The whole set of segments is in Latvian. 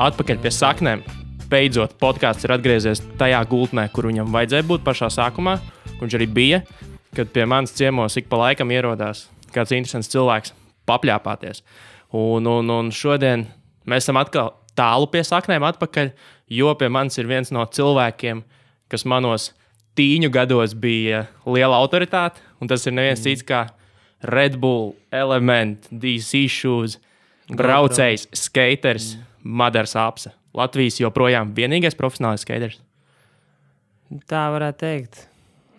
atpakaļ pie saknēm. Beidzot, podkāsts ir atgriezies tajā gultnē, kur viņam vajadzēja būt pašā sākumā. Viņš arī bija, kad pie manas ciemos ik pa laikam ierodās kāds interesants cilvēks papļāpāties. Un šodien mēs esam atkal tālu pie saknēm atpakaļ, jo pie manis ir viens no cilvēkiem, kas manos tīņu gados bija liela autoritāte, un tas ir neviens cits kā Red Bull, Element, DC Shoes, braucējs, skaters, Madars Apse. Latvijas joprojām vienīgais profesionāls skaters. Tā varētu teikt.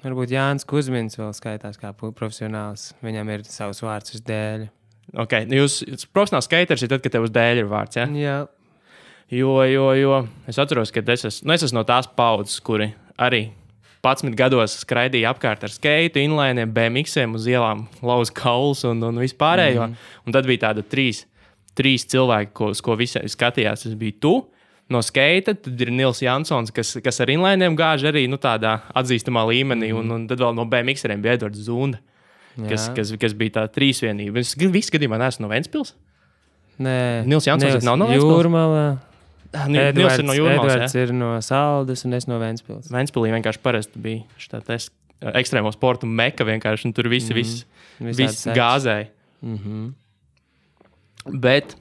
Varbūt Jānis Kuzmins vēl skaitās kā profesionāls. Viņam ir savs vārds uz dēļa. Ok, jūs profesionāls skaters ir tad, kad tev uz dēļa ir vārds, ja? Jā. Jo es atceros, ka es esmu no tās paudzes, kuri arī 11 gados skraidīja apkārt ar skeitu, inlainiem, BMX-iem uz ielām, lauz kaulus un vispārējo. Un tad bija tāda trīs cilvēki, uz ko visi skatījās. Tas bija tu no skeita, tad ir Nils Jansons, kas ar inlainiem gāž arī tādā atzīstamā līmenī, un tad vēl no BMX-eriem bija Edvards Zunda, kas bija tā trīsvienība. Es visu gadījumā neesmu no Ventspils? Nē. Nils Jansons nav no Ventspils? Jūrmala. Nils ir no Jūrmalas, Edvards ir no Saldas, un es no Ventspils. Ventspilī vienkārši parasti bija štātais ekstrēmo sportu meka vienkārši, un tur viss gāzēja. Bet,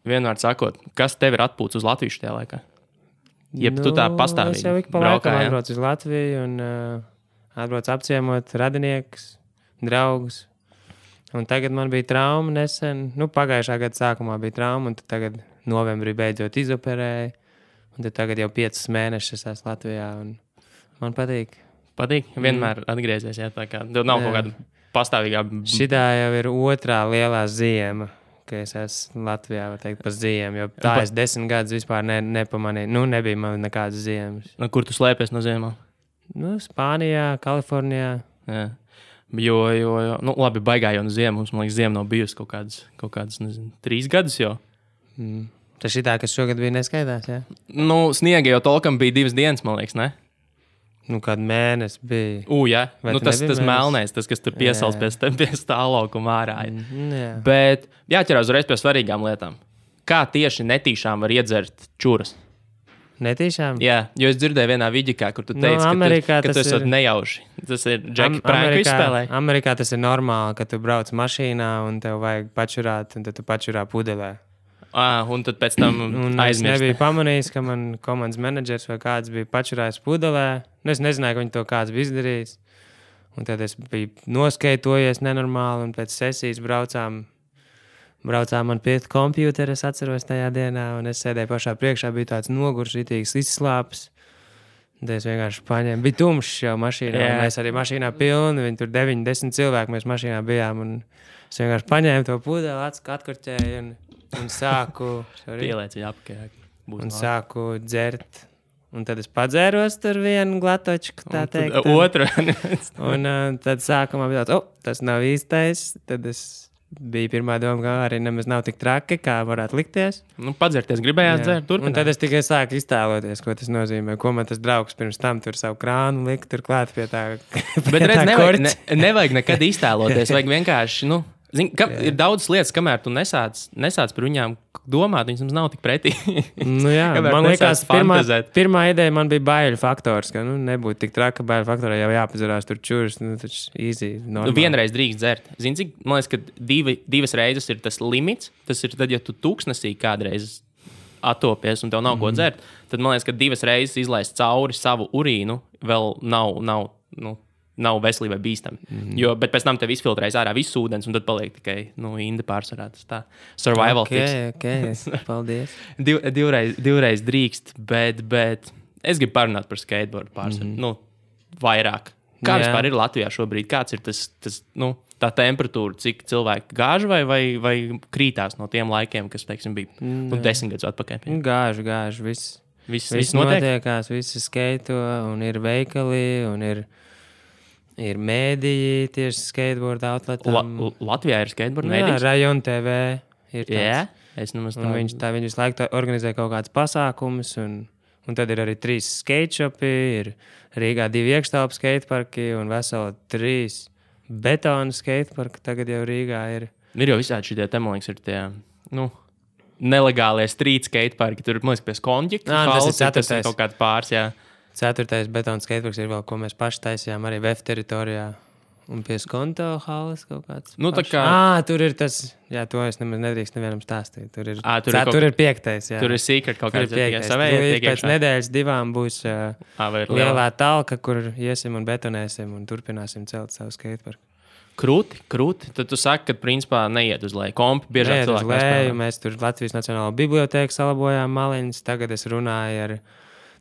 vienmēr sakot, kas tev ir atpūts uz Latviju šajā laikā? Jeb tu tā pastāvīgi es jau ik pa laikam atbraucu uz Latviju un atbraucu apciemot radiniekus, draugus. Un tagad man bija trauma nesen. Pagājušā gada sākumā bija trauma, un tad tagad novembrī beidzot izoperēju. Un tad tagad jau 5 mēnešus esmu Latvijā, un man patīk. Patīk? Vienmēr atgriezies, jā, tā kā. Tev nav kaut kāda pastāvīgā... Šitā jau ir otrā lielā ziema, ka es esmu Latvijā, var teikt, pa ziemu, jo tā es 10 gadus vispār nepamanīju. Nebija man nekādas ziemas. Kur tu slēpies no ziemām? Spānijā, Kalifornijā. Jā. Jo, labi, baigā jau no ziemas. Man liekas, ziema nav bijusi kaut kādas, nezinu, 3 gadus jau. Tas šitā, kas šogad bija neskaidrs, jā? Sniega jau tolkam bija 2 dienas, man liekas, ne? Kādu mēnesi bija. Jā. Tas melnais, tas, kas tur piesals pie stāvlaukuma ārā. Bet jāķerās uzreiz pie svarīgām lietām. Kā tieši netīšām var iedzert čuras? Netīšām? Jā, jo es dzirdēju vienā vidikā, kur tu teici, ka tu esat nejauši. Tas ir Džeki Prānku izspēlē. Amerikā tas ir normāli, ka tu brauc mašīnā un tev vajag pačurāt, un tad tu pačurā pudelē. Un tad pēc tam aizmirst. Es nebiju pamanījis, ka man komandas menedžers vai kāds bija pačurājis pudelē. Es nezināju, ka viņi to kāds bija izdarījis. Un tad es biju noskeitojies nenormāli, un pēc sesijas braucām man pie kompjutera, es atceros tajā dienā, un es sēdēju pašā priekšā, bija tāds nogurs, ritīgs izslāpes. Tad es vienkārši paņēmu, bija tumšs jau mašīnā, un mēs arī mašīnā pilni, viņi tur 9-10 cilvēki mēs mašīnā bijām, un es vienkārši paņēmu to pudeli, atkurķēju, un sāku... Pielēci apkārt. Un sāku dzert. Un tad es padzēros tur vienu glatočku, tā teikt. Otru. Un tad sākumā bija tāds, tas nav īstais, tad es... Bija pirmā doma, ka arī nemaz nav tik traki, kā varētu likties. Padzerties, gribējāt dzert, turpināt. Un tad es tikai sāku iztēloties, ko tas nozīmē. Ko man tas draugs pirms tam tur savu krānu lika tur klāt pie tā. Bet redz, nevajag nekad iztēloties, vajag vienkārši, ir daudz lietas, kamēr tu nesāc par viņām domāt, viņas nav tik pretī. Man liekas, pirmā ideja man bija baiļu faktors, ka nebūtu tik traka baiļu faktorā, jau jāpazarās tur čuras, taču easy, normāli. Vienreiz drīkst dzert. Zini, cik, man liekas, ka 2 reizes ir tas limits, tas ir tad, ja tu tūkstnesī kādreiz attopies un tev nav ko dzert, tad man liekas, ka 2 reizes izlaist cauri savu urīnu vēl nav veselībai bīstami. Bet pēc tam tev izfiltrējas ārā viss ūdens, un tad paliek tikai indi pārsvarā. Tas tā survival tips. Ok, paldies. Divreiz drīkst, bet es gribu parunāt par skateboardu pārsvaru. Vairāk. Kā vispār ir Latvijā šobrīd? Kāds ir tas tā temperatūra, cik cilvēki gāž vai krītās no tiem laikiem, kas, teiksim, bija 10 gadus atpakaļ? Gāž, viss notiekās, visi skaito, un ir veikali, un ir mēdīji tieši skateboard outletam. Latvijā ir skateboard mēdījis? Jā, Rajon TV ir tāds. Jā, es nemaz tā. Viņi visu laiku organizē kaut kādas pasākumus, un tad ir arī 3 skate shopi, ir Rīgā 2 iekštelpu skateparki un veseli 3 betonu skateparki tagad jau Rīgā ir. Ir jau visādi šitie, man liekas, ir tie, nelegālie street skateparki. Tur, man liekas, pie Skonģika. Tas ir kaut kāds pāris, jā. 4. betona skateparks ir vēl, ko mēs paši taisījām arī VF teritorijā. Un pie Skonto halas kaut kāds. Nu, tā kā... Tur ir tas, jā, to es nemaz nedrīkst nevienam stāstīt. Tur ir 5. jā. Tur ir secret kaut kāds. Pēc nedēļas 2 būs lielā talka, kur iesim un betonēsim un turpināsim celt savu skateparku. Krūti. Tad tu saki, ka principā neiet uz leju. Kompi biežāk cilvēki nespēlē. Mēs tur Latvijas Nacionālo bibliotēku salabojām maliņas. Tagad es runāju ar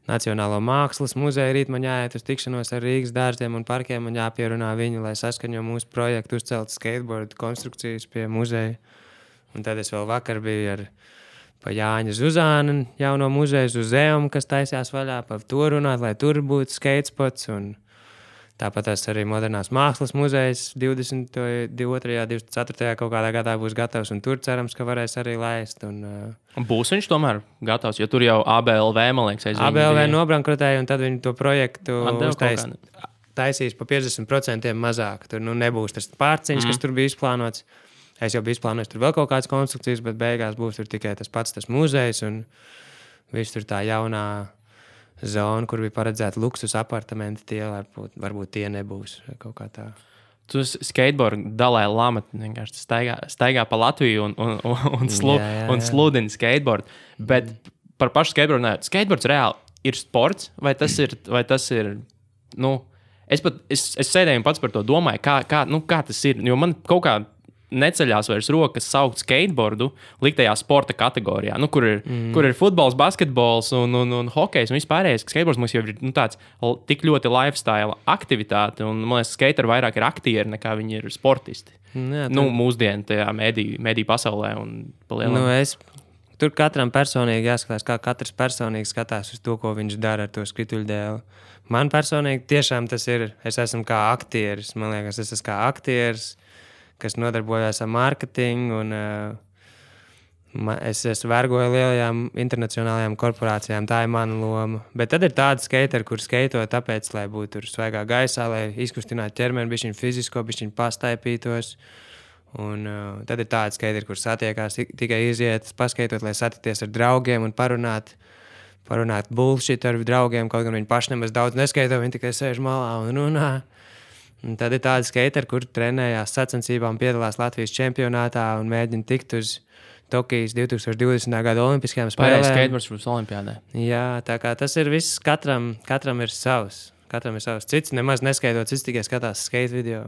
Nacionālo mākslas muzeju. Rīt man jāiet uz tikšanos ar Rīgas dārziem un parkiem. Man jāpierunā viņi, lai saskaņo mūsu projektu uzcelt skateboard konstrukcijas pie muzeja. Un tad es vēl vakar biju ar pa Jāņa Zuzāna jauno muzeju uz Zeum, kas taisījās vaļā par to runāt, lai tur būtu skatespots. Un tāpat arī Modernās mākslas muzejs 22. 24. kaut kādā gadā būs gatavs, un tur cerams, ka varēs arī laist. Un būs viņš tomēr gatavs, jo tur jau ABLV, man liekas, ABLV nobankrotēja, un tad viņi to projektu taisīs pa 50% mazāk. Tur nebūs tas pārciņš, kas tur bija izplānots. Es jau biju izplānojis tur vēl kaut kādas konstrukcijas, bet beigās būs tur tikai tas pats tas muzejs, un viss tur tā jaunā zona, kur bija paredzēta luksus apartamenti, tie varbūt tie nebūs kaut kā tā. Tu skateboard Dalai Lama vienkārši staigā pa Latviju un sludini skateboard. Bet par pašu skateboardu ne. Skateboards reāli ir sports, vai tas ir es sēdēju un pats par to domāju, kā tas ir, jo man kaut kā neceļās vairs rokas saukt skateboardu liktajā sporta kategorijā, kur ir futbols, basketbols un hokejs un vispārējais. Skateboards mums jau ir tāds tik ļoti lifestyle aktivitāte, un man liekas, skateri vairāk ir aktieri nekā viņi ir sportisti. Jā, mūsdienu tajā mediju pasaulē un palielināt. Tur katram personīgi jāskatās, kā katrs personīgi skatās uz to, ko viņš dara ar to skrituļdēli. Man personīgi tiešām tas ir, es esmu kā aktieris, man liekas, es esmu kā aktieris, kas nodarbojās ar mārketingu, un es vergoju lielajām internacionālajām korporācijām. Tā ir mana loma. Bet tad ir tādi skateri, kur skaito tāpēc, lai būtu tur svaigā gaisā, lai izkustinātu ķermeni, bišķiņ fizisko, bišķiņ pastaipītos. Un tad ir tādi skateri, kur satiekās tikai iziet, paskaitot, lai satikties ar draugiem un parunāt bullshit ar draugiem, kaut gan viņi paši nemaz daudz neskaito, viņi tikai sēž malā un runā. Un tad ir tādi skateri, kur trenējās sacensībām, piedalās Latvijas čempionātā un mēģina tikt uz Tokijas 2020. gada olimpiskajām spēlēm. Skateboards būs olimpiādē. Jā, tā kā tas ir viss, katram ir savs. Katram ir savs. Cits nemaz neskaitot, cits tikai skatās skate video.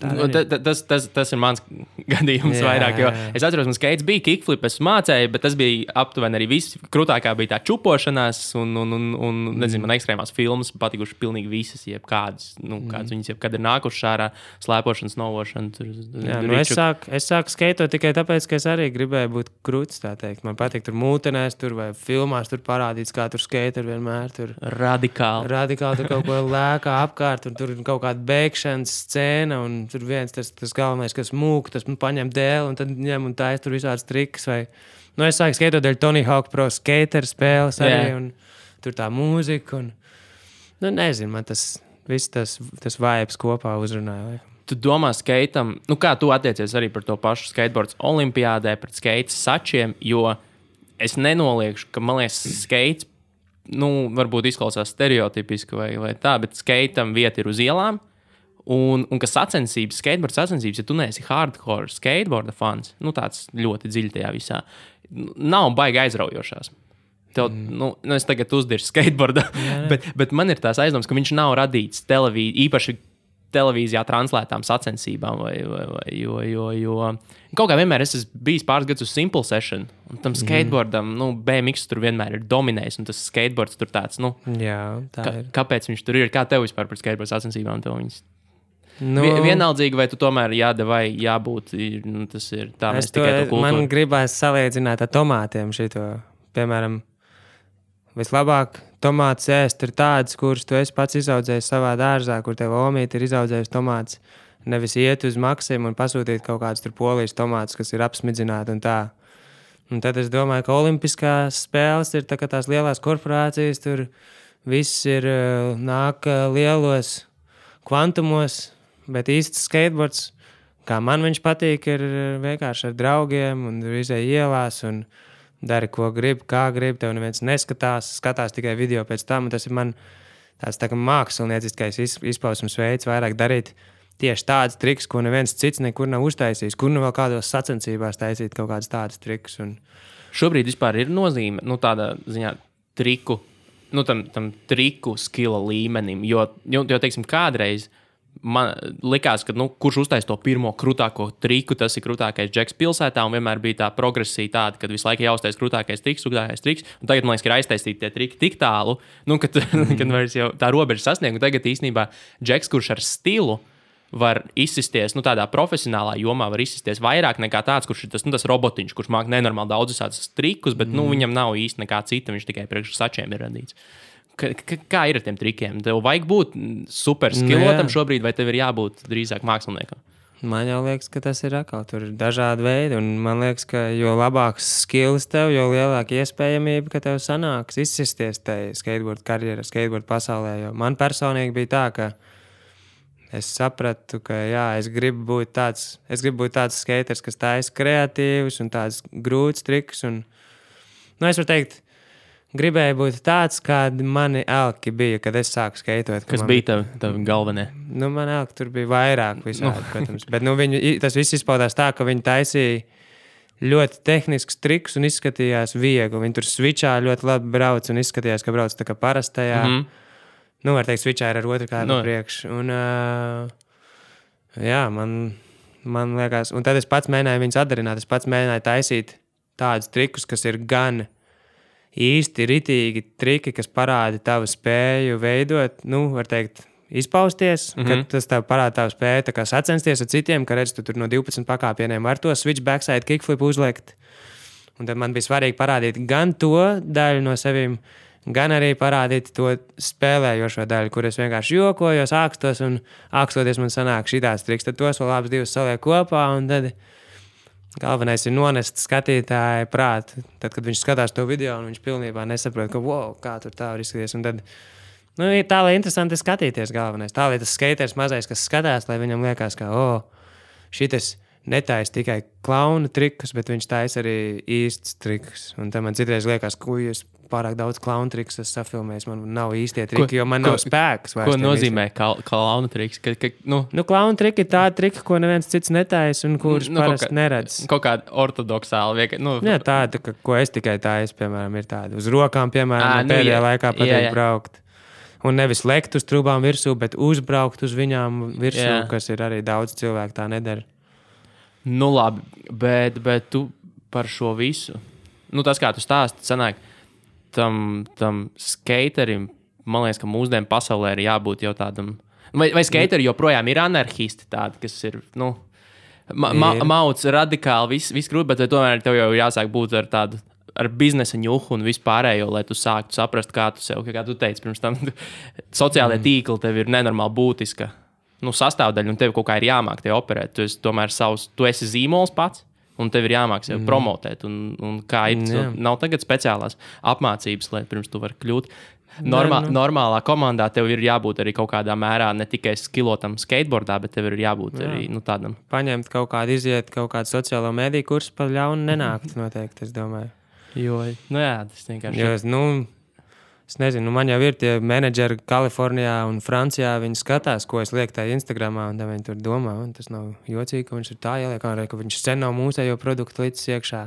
Tas ir mans gadījums vairāk, jo es atceros, man skates bija kickflip, es mācēju, bet tas bija aptuveni arī viss. Krūtākā bija tā čupošanās un nezinu, man ekstrēmās filmas patikuši pilnīgi visas, jebkādas, kādas viņas jebkad ir nākušas ārā, slēpošanas, novošana. Es sāku skaitot tikai tāpēc, ka es arī gribēju būt krūts, tā teikt. Man patīk tur mūtenēs, tur vai filmās tur parādīts, kā tur skater vienmēr tur. Radikāli tur kaut ko lēkā apkārt, un tur kaut kāda bēgšanas scēna, un tur viens tas galvenais, kas mūk, tas paņem dēli un tad ņem un taisa tur visādas triks. Es sāku skaitot dēļ Tony Hawk Pro Skater spēles arī, un tur tā mūzika. Nezinu, man tas viss tas vibes kopā uzrunāja. Tu domā skaitam, kā tu attiecies arī par to pašu skateboards olimpiādē, pret skaitas sačiem, jo es nenoliekšu, ka, man liekas, skaits, varbūt izklausās stereotipiski vai tā, bet skaitam vieta ir uz ielām. Un ka skateboard sacensības, ja tu neesi hardcore skateboarda fans, tāds ļoti dziļi tajā visā, nav baigi aizraujošās. Es tagad uzdirsu skateboardā, bet man ir tās aizdomas, ka viņš nav radīts īpaši televīzijā translētām sacensībām, jo kaut kā vienmēr es esmu bijis pāris gadus uz Simple Session, un tam skateboardam, BMX tur vienmēr ir dominējis, un tas skateboards tur tāds, kāpēc viņš tur ir, kā tev vispār par skateboard sacensībām tev viņas? Vienaldzīgi, vai tu tomēr vai jābūt, tas ir tā, mēs tikai to kultūru. Man gribās salīdzināt ar tomātiem šito. Piemēram, vislabāk tomātus ēst ir tādas, kuras tu esi pats izaudzējis savā dārzā, kur tev omīte ir izaudzējis tomātus. Nevis iet uz Maksimu un pasūtīt kaut kādus tur polijas tomātus, kas ir apsmidzināti un tā. Un tad es domāju, ka olimpiskās spēles ir tā kā tās lielās korporācijas, tur viss ir nāk lielos kvantumos. Bet īsts skateboards, kā man viņš patīk, ir vienkārši ar draugiem un izēj ielās un dari, ko grib, kā grib, tev neviens skatās tikai video pēc tam, un tas ir man tāds tā kā mākslinieckais izpausmes veids vairāk darīt tieši tāds triks, ko neviens cits nekur nav uztaisījis, kur nu vēl kādos sacensībās taisīt kaut kādas tādas triks. Un... Šobrīd vispār ir nozīme, tādā ziņā triku, tam triku skila līmenim, jo teiksim, kādreiz man likās, ka, kurš uztais to pirmo krūtāko triku, tas ir krūtākais džeks pilsētā, un vienmēr bija tā progresija tāda, kad visu laiku jāuztais krūtākais triks, un tagad, man liekas, ir aiztaisīti tie triki tik tālu, kad vairs jau tā robeža sasniegt, un tagad īstenībā džeks, kurš ar stilu var izsisties, tādā profesionālā jomā var izsisties vairāk nekā tāds, kurš ir tas robotiņš, kurš māk nenormāli daudz visādus trikus, bet, viņam nav īsti nekā cita, viņš tikai priekš sačiem ir radīts. Kā ir ar tiem trikiem? Tev vajag būt super skilotam šobrīd, vai tev ir jābūt drīzāk māksliniekam? Man jau liekas, ka tas ir atkal. Tur ir dažādi veidi, un man liekas, ka jo labāks skills tev, jo lielāka iespējamība, ka tev sanāks izsisties tajā skateboard karjerā, skateboard pasaulē. Jo man personīgi bija tā, ka es sapratu, ka es gribu būt tāds skaters, kas taisa kreatīvus un tāds grūts triks. Un, es varu teikt, gribēju būt tāds, kādi mani elki bija, kad es sāku skeitot. Kas bija tavi galvenie? Man elki tur bija vairāk visādi, protams. Bet tas viss izpaudās tā, ka viņi taisīja ļoti tehnisks triks un izskatījās viegli. Viņi tur switchā ļoti labi brauc un izskatījās, ka brauc tā kā parastajā. Var teikt, switchā ir ar otru kādu priekš. Un, man liekas, un tad es pats mēģināju viņus atdarināt. Es pats mēģināju taisīt tādus trikus, kas ir gan īsti ritīgi triki, kas parāda tavu spēju veidot, var teikt, izpausties, kad tas tev parāda tavu spēju tā kā sacensties ar citiem, ka redz, tu tur no 12 pakāpieniem var to switch backside kickflip uzlikt. Un tad man bija svarīgi parādīt gan to daļu no sevīm, gan arī parādīt to spēlējošo daļu, kur es vienkārši jokojos, ākstos, un ākstoties man sanāk šitās triks. Tad tos vēl abas divas saliek kopā, un tad galvenais ir nonest skatītāju prātu. Tad, kad viņš skatās to video, un viņš pilnībā nesaprot, ka kā tur tā var izskatīties. Un tad, tā, lai interesanti skatīties galvenais. Tā, lai tas skaters mazais, kas skatās, lai viņam liekas, ka, šitas netaisa tikai klauna trikus, bet viņš taisa arī īsts trikus. Un tad man citreiz liekas, es pārāk daudz klauna trikus esmu safilmējis. Man nav īstie triki, jo man nav spēks. Ko nozīmē klauna triks? Klauna triki ir tādi triki, ko neviens cits netaisa un kurus parasti neredz. Kaut kāda ortodoksāla tāda, ko es tikai taisu, piemēram, ir tāda. Uz rokām, piemēram, pēdējā laikā patīk braukt. Un nevis lekt uz trūbām virsū, bet uzbraukt uz viņām virsū, kas ir arī daudz cilvēku tā nedara. Labi, bet tu par šo visu, tas kā tu stāsti, sanāk, tam skaterim, man liekas, ka mūsdienu pasaulē ir jābūt jau tādam, vai skateri joprojām ir anarchisti tādi, kas ir, mauc radikāli, viss grūti, bet tomēr tev jau jāsāk būt ar tādu, ar biznesa ņuhu un vispārējo, lai tu sāktu saprast, kā tu teici pirms tam, sociālajie tīkli tev ir nenormāli būtiska sastāvdaļa, un tev kaut kā ir jāmāk te operēt. Tu esi tomēr tu esi zīmols pats, un tev ir jāmāk sev promotēt. Un kā ir, nav tagad speciālās apmācības, lai pirms tu vari kļūt. Normālā komandā tev ir jābūt arī kaut kādā mērā ne tikai skilotam skateboardā, bet tev ir jābūt arī tādam. Paņemt kaut kādu iziet, kaut kādu sociālo mediju kursu pa ļaunu nenākt noteikti, es domāju. Tas vienkārši... Es nezinu, man jau ir tie menedžeri Kalifornijā un Francijā, viņi skatās, ko es lieku tajā Instagramā, un viņi tur domā, un tas nav jocīgi, ka viņš ir tā ieliek, ka viņš sen nav mūsējo produktu līdz iekšā.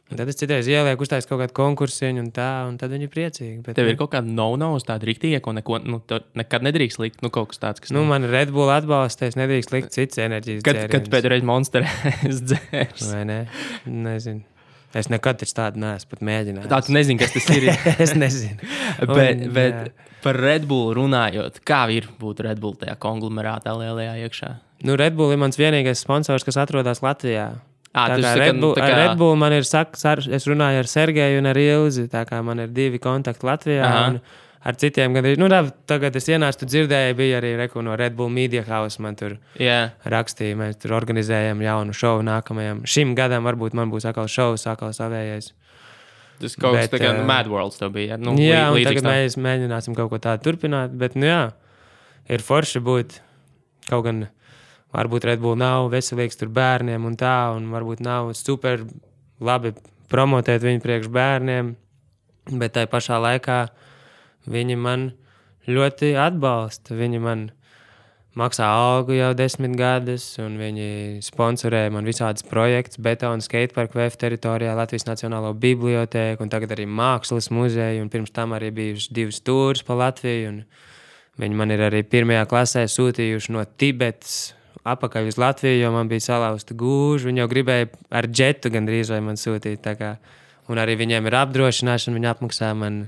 Un tad es citreiz ielieku uztais kaut kādu konkursiņu un tad viņi ir priecīgi. Bet, tev ir kaut kāda no-nos tāda riktīga, ko nekad nedrīkst likt, kaut kas tāds, kas... man Red Bull atbalsta, es nedrīkst likt cits enerģijas dzēriens. Kad pēdējais Monster es dzērs? Vai ne? Nezinu. Es nekad tādu neesmu pat mēģinājis. Tā tu nezini, kas tas ir. Es nezinu. Bet par Red Bull runājot, kā ir būt Red Bull tajā konglomerātā lielajā iekšā? Red Bull ir mans vienīgais sponsors, kas atrodas Latvijā. Red Bull man ir, es runāju ar Sergeju un ar Ilzi, tā kā man ir 2 kontakti Latvijā. Un ar citiem gandrīz. Tagad es ienācu, tu dzirdēji, bija arī no Red Bull Media House. Man tur rakstīja, mēs tur organizējam jaunu šovu nākamajam. Šim gadam varbūt man būs atkal šovs, atkal savējais. Tas kaut kas tā kā Mad Worlds tev bija. Un tagad mēs mēģināsim kaut ko tādu turpināt. Bet, ir forši būt kaut gan, varbūt Red Bull nav veselīgs tur bērniem un tā, un varbūt nav super labi promotēt viņu priekš bērniem, bet tai pašā laikā viņi man ļoti atbalsta. Viņi man maksā algu jau 10 gadus, un viņi sponsorē man visādas projekts, betona skateparku VF teritorijā, Latvijas Nacionālo bibliotēku, un tagad arī Mākslas muzeju, un pirms tam arī bijuši 2 tūrus pa Latviju, un viņi man ir arī 1. klasē sūtījuši no Tibetas apakaļ uz Latviju, jo man bija salauzta gūža. Viņi jau gribēja ar džetu gandrīz vai man sūtīt, tā kā, un arī viņiem ir apdrošināšana, viņi apmaksā man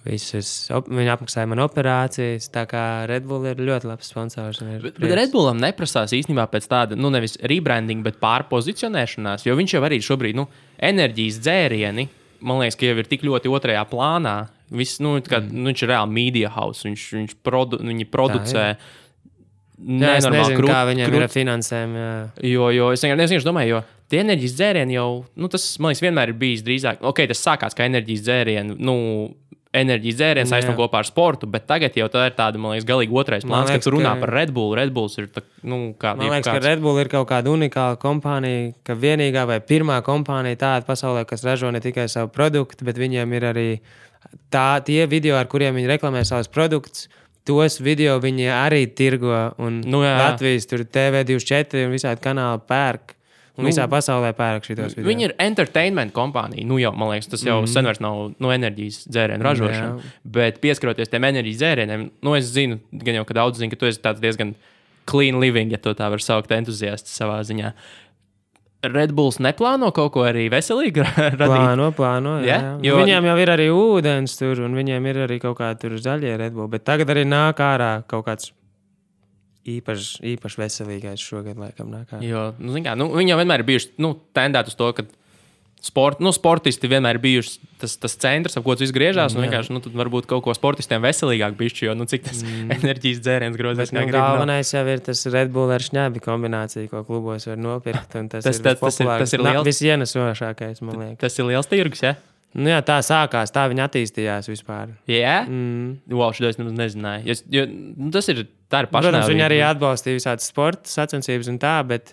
viņi apmaksāja man operācijas, tā kā Red Bull ir ļoti labs sponsors. Bet Red Bullam neprasās īstenībā pēc tāda, nevis rebranding, bet pārpozicionēšanās, jo viņš jau arī šobrīd, enerģijas dzērieni, man liekas, ka jau ir tik ļoti otrajā plānā. Viss, viņš ir reāli media house, viņi producē. Jā, es nezinu, kā viņiem ir ar finansēm. Jo es vienkārši domāju, jo tie enerģijas dzērieni jau, tas, man liekas, vienmēr ir bijis drīzāk, tas sākās kā enerģijas dzērieni, enerģijas dzēriens aizsno kopā ar sportu, bet tagad jau tā ir tāda, man liekas, galīgi otrais plāns, kad tu runā par Red Bull. Red Bulls ir tā, kā... Man liekas, ka Red Bull ir kaut kāda unikāla kompānija, ka vienīgā vai pirmā kompānija tāda pasaulē, kas ražo ne tikai savu produktu, bet viņiem ir arī tie video, ar kuriem viņi reklamē savus produktus, tos video viņi arī tirgo, un Latvijas tur TV24 un visādi kanāli pērk. Un visā pasaulē pērk šitos video. Viņi ir entertainment kompānija. Jau, man liekas, tas jau sen vairs nav enerģijas dzērienu ražošana. Bet pieskaroties tiem enerģijas dzērieniem, es zinu, gan jau, ka daudz zina, ka tu esi tāds diezgan clean living, ja to tā var saukt, entuziasts savā ziņā. Red Bulls neplāno kaut ko arī veselīgi radīt? Plāno, jā. Jo... Viņiem jau ir arī ūdens tur, un viņiem ir arī kaut kādi tur zaļie Red Bull. Bet tagad arī nāk ārā kaut kāds īpaši veselīgais šogad, laikam, nāk ārā. Jo, viņi jau vienmēr ir bijuši tendēti uz to, ka sportisti vienmēr ir bijuši tas centrs, ap ko tas viss griežās, un vienkārši, tad varbūt kaut ko sportistiem veselīgāk bišķi, jo, cik tas enerģijas dzēriens grozās. Bet galvenais jau ir tas Red Bull ar šņābi kombinācija, ko klubos var nopirkt, un tas ir liels. Visienesošākais, man liekas. Tas ir liels tirgus, ja? Jā, tā sākās, tā viņa attīstījās vispār. Jā? Wow, šito es nezināju. Jo, tā ir pašnāvība. Protams, viņi arī atbalstīja visādas sporta sacensības un tā, bet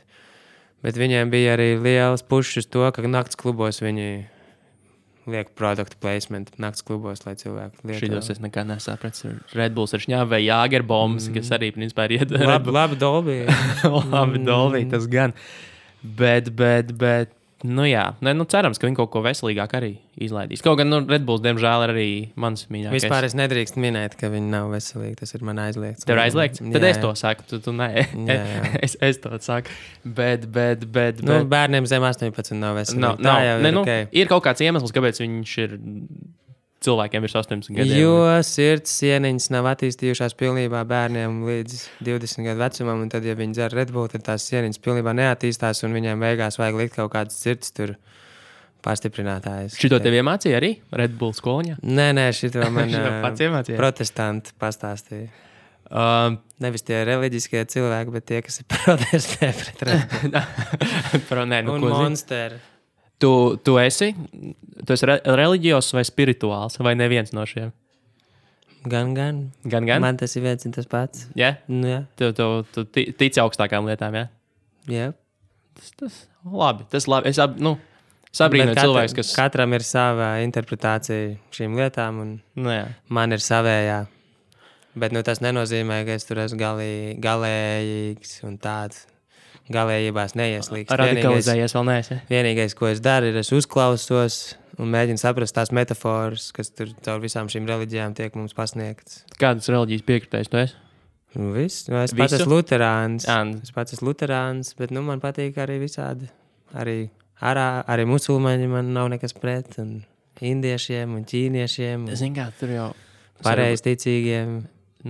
viņiem bija arī liels pušs uz to, ka nakts klubos viņi liek produktu placement nakts klubos, lai cilvēki lieto. Šitos es nekā nesapratu. Red Bulls ar šņābi vai Jāgerbombas, kas arī principā ir iet. Labi Dolby. Labi Dolby, tas gan. Bet, cerams, ka viņi kaut ko veselīgāk arī izlaidīs. Kaut gan, Red Bulls, diemžēl, ir arī mans mīļākais. Vispār es nedrīkst minēt, ka viņi nav veselīgi. Tas ir man aizliegts. Tev ir aizliegts? Tad es to saku, tu nē. Es to saku. Bet. Bērniem zem 18 nav veselīgi. Ir kaut kāds iemesls, kāpēc viņš ir cilvēkiem virs 18 gadiem. Jo sirds sieniņas nav attīstījušās pilnībā bērniem līdz 20 gadu vecumam, un tad, ja viņi dzer Red Bull, tad tās sieniņas pilnībā neattīstās, un viņiem beigās vajag likt kaut kādas sirds tur pastiprinātājs. Šito tev iemācīja arī Red Bull skoliņā? Nē, šito man iemācīja? Protestanti pastāstīja. Nevis tie reliģiskie cilvēki, bet tie, kas ir protestē pret Red Bull. Un Monster. Tu esi reliģijos vai spirituāls, vai neviens no šiem? Gan. Man tas ir viens un tas pats. Jā? Jā. Tu tici augstākām lietām, jā? Jā. Tas labi. Es sabrīnoju cilvēks, kas... Katram ir sava interpretācija šīm lietām, un man ir savējā. Bet tas nenozīmē, ka es tur esmu galējīgs un tāds. Galējībās neieslīgst. Radikalizējies vēl neesi. Vienīgais, ko es daru, ir es uzklausos un mēģinu saprast tās metaforas, kas tur caur visām šīm reliģijām tiek mums pasniegtas. Kādas reliģijas piekritējis tu esi? Es pats esmu luterāns, bet man patīk arī visādi. Arī musulmaņi man nav nekas pret, un indiešiem un ķīniešiem. Zin kā, tur jau... Pareizticīgiem.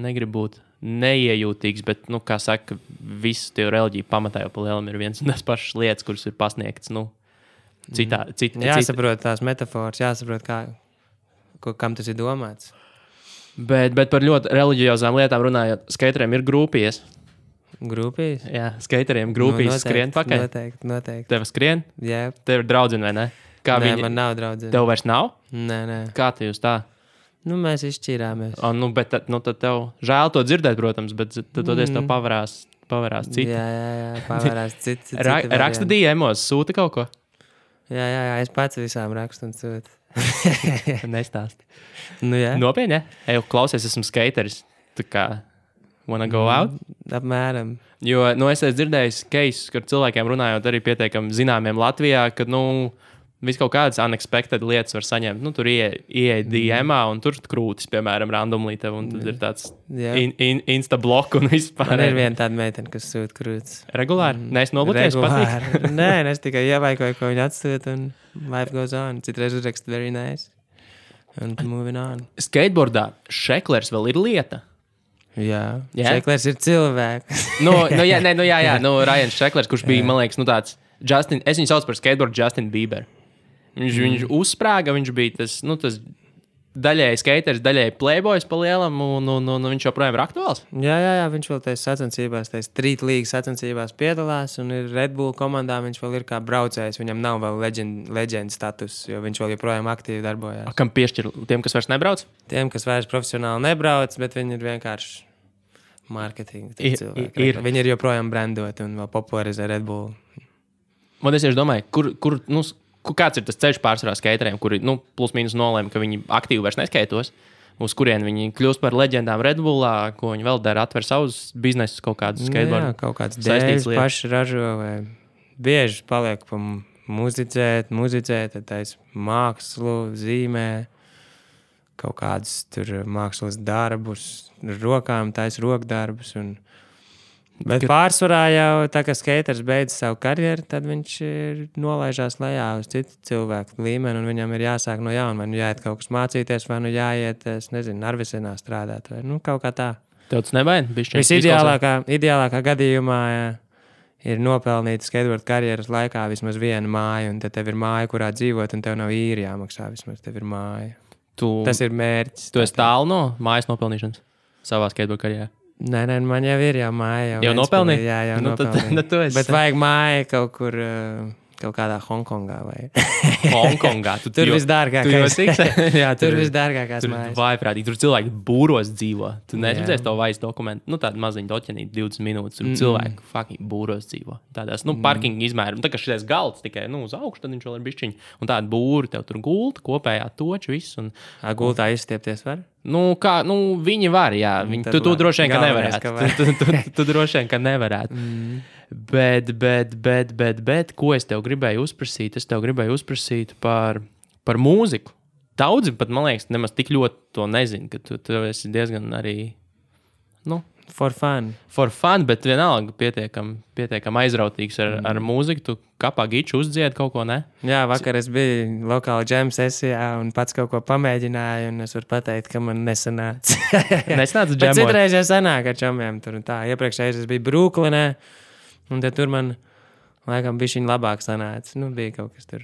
Negribu būt neiejūtīgs, bet, kā saka, visu tie reliģiju pamatā jau pa lielam ir viens un tas pašas lietas, kuras ir pasniegtas, Jāsaprot tās metaforas, jāsaprot, kam tas ir domāts. Bet par ļoti reliģiozām lietām runājot, skateriem ir grupijas. Grupijas? Jā, skateriem grupijas skrien pakaļ. Noteikti. Tev skrien? Jā. Tev ir draudzene, vai ne? Nē, man nav draudzene. Tev vairs nav? Nē. Kā tu jūs tā? Mēs izšķīrāmies. Bet tad tev žēl to dzirdēt, protams, bet tad tev pavarās citi. Jā, pavarās citi. Raksta DM-os, sūta kaut ko? Jā, es pats visām rakstu un sūtu. Nestāsti. Nu, jā. Nopietni, ja? Ej, klausies, esmu skateris. Tu kā, wanna go out? Apmēram. Jo, es esmu dzirdējis cases, kur cilvēkiem runājot arī pietiekami zināmiem Latvijā, ka, vis kaut kādas unexpected lietas var saņemt. Tur ieeja DM-ā un tur krūtis, piemēram, randomly tev, un tad ir tāds insta-blok un vispār. Man ir viena tāda meitene, kas sūta krūtis. Regulāri? Nē, es nobloķēju, patīk. Nē, es tikai ievaikoju, ko viņa atsūta, un life goes on. Citreiz uzrakst very nice. Un moving on. Skateboardā šeklers vēl ir lieta. Jā. Šeklers ir cilvēks. Jā. Ryan Šeklers, kurš bija, man liekas, tāds Justin, es viņu sauc par skateboardu Justin Bieber. Viņš uzsprāga, viņš bija tas daļēji skateris, daļēji playboys pa lielam, un viņš joprojām ir aktuāls. Jā, viņš vēl tajās sacensībās, tajās Street League sacensībās piedalās, un ir Red Bull komandā, viņš vēl ir kā braucējs, viņam nav vēl legend status, jo viņš vēl joprojām aktīvi darbojās. Kam piešķir tiem, kas vairs nebrauc? Tiem, kas vairs profesionāli nebrauc, bet viņi ir vienkārši marketinga cilvēki. Viņi ir joprojām brandoti un vēl popularizē Red Bull. Man es domāju, kāds ir tas ceļš pārsvarā skateriem, kuri plus mīnus nolēma, ka viņi aktīvi vairs neskaitos, uz kurien viņi kļūst par leģendām Red Bullā, ko viņi vēl dara, atver savus biznesus, kaut kādus skateboardu. Jā, kaut kāds dēļas paši ražo, vai bieži paliek pa muzicēt, tad tais mākslu, zīmē, kaut kādus tur mākslas darbus, rokām tais rokdarbus. Bet pārsvarā jau tā, ka skaters beidz savu karjeru, tad viņš nolaižās lejā uz citu cilvēku līmeni, un viņam ir jāsāk no jauna, vai jāiet kaut kas mācīties, vai jāiet, Narvisenā strādāt, vai kaut kā tā. Tev tas nebaida? Visideālākā gadījumā ir nopelnīt skateboard karjeras laikā vismaz viena māja, un tad tev ir māja, kurā dzīvot, un tev nav īri jāmaksā, vismaz tev ir māja. Tas ir mērķis. Tu esi tālu no mājas nopelnīšanas savā skateboard karjerā? Nē, man jau ir māja. Jau nopelnīja? Jā, jau nopelnīja. Bet vajag māja kaut kur, kaut kādā Hongkongā vai... Hongkongā? Tur visdārgākās. Jā, tur visdārgākās mājas. Tur vājprātīgi. Tur cilvēki būros dzīvo. Tu neredzēsi to vairs dokumentu. Tādu maziņu doķenīti 20 minūtes. Tur cilvēki fucking būros dzīvo. Tādās, parkinga izmēram. Tā kā šitais galds tikai, uz augšu, tad viņš vēl ir bišķiņi. Un tāda būri tev tur gulta, kopējā toču, viss. Gultā izstiepties var? Viņi var, jā. Tu droši vien, ka nevarētu. Tu droši vien, ka nevarētu. Bet, ko es tev gribēju uzprasīt? Es tev gribēju uzprasīt par mūziku. Daudzi pat, man liekas, nemaz tik ļoti to nezinu, ka tu esi diezgan arī, For fun, bet vienalga pietiekam aizrautīgs ar mūziku. Tu kapā giču uzdzied kaut ko, ne? Jā, vakar es biju lokāla jam sesijā un pats kaut ko pamēģināju, un es varu pateikt, ka man nesanāca. Nesanāca jamot? Bet citreiz jau sanāk ar čomiem tur un tā. Iepriekšējais es biju Brooklynē, un tad tur man laikam bišķiņ labāk sanāca. Bija kaut kas tur.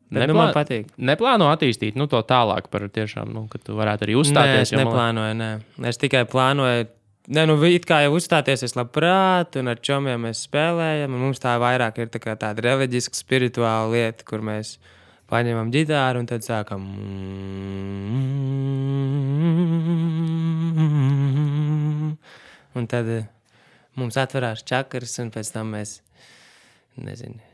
Bet, man patīk. Neplāno attīstīt to tālāk par tiešām, ka tu varētu arī uzstāties? Nē, es neplānoju, nē. Es tikai plānoju. It kā jau uzstāties es labprāt, un ar čomiem mēs spēlējam, un mums tā vairāk ir tāda reliģiska, spirituāla lieta, kur mēs paņemam ģitāru un tad sākam. Un tad mums atverās čakras, un pēc tam mēs, nezinu.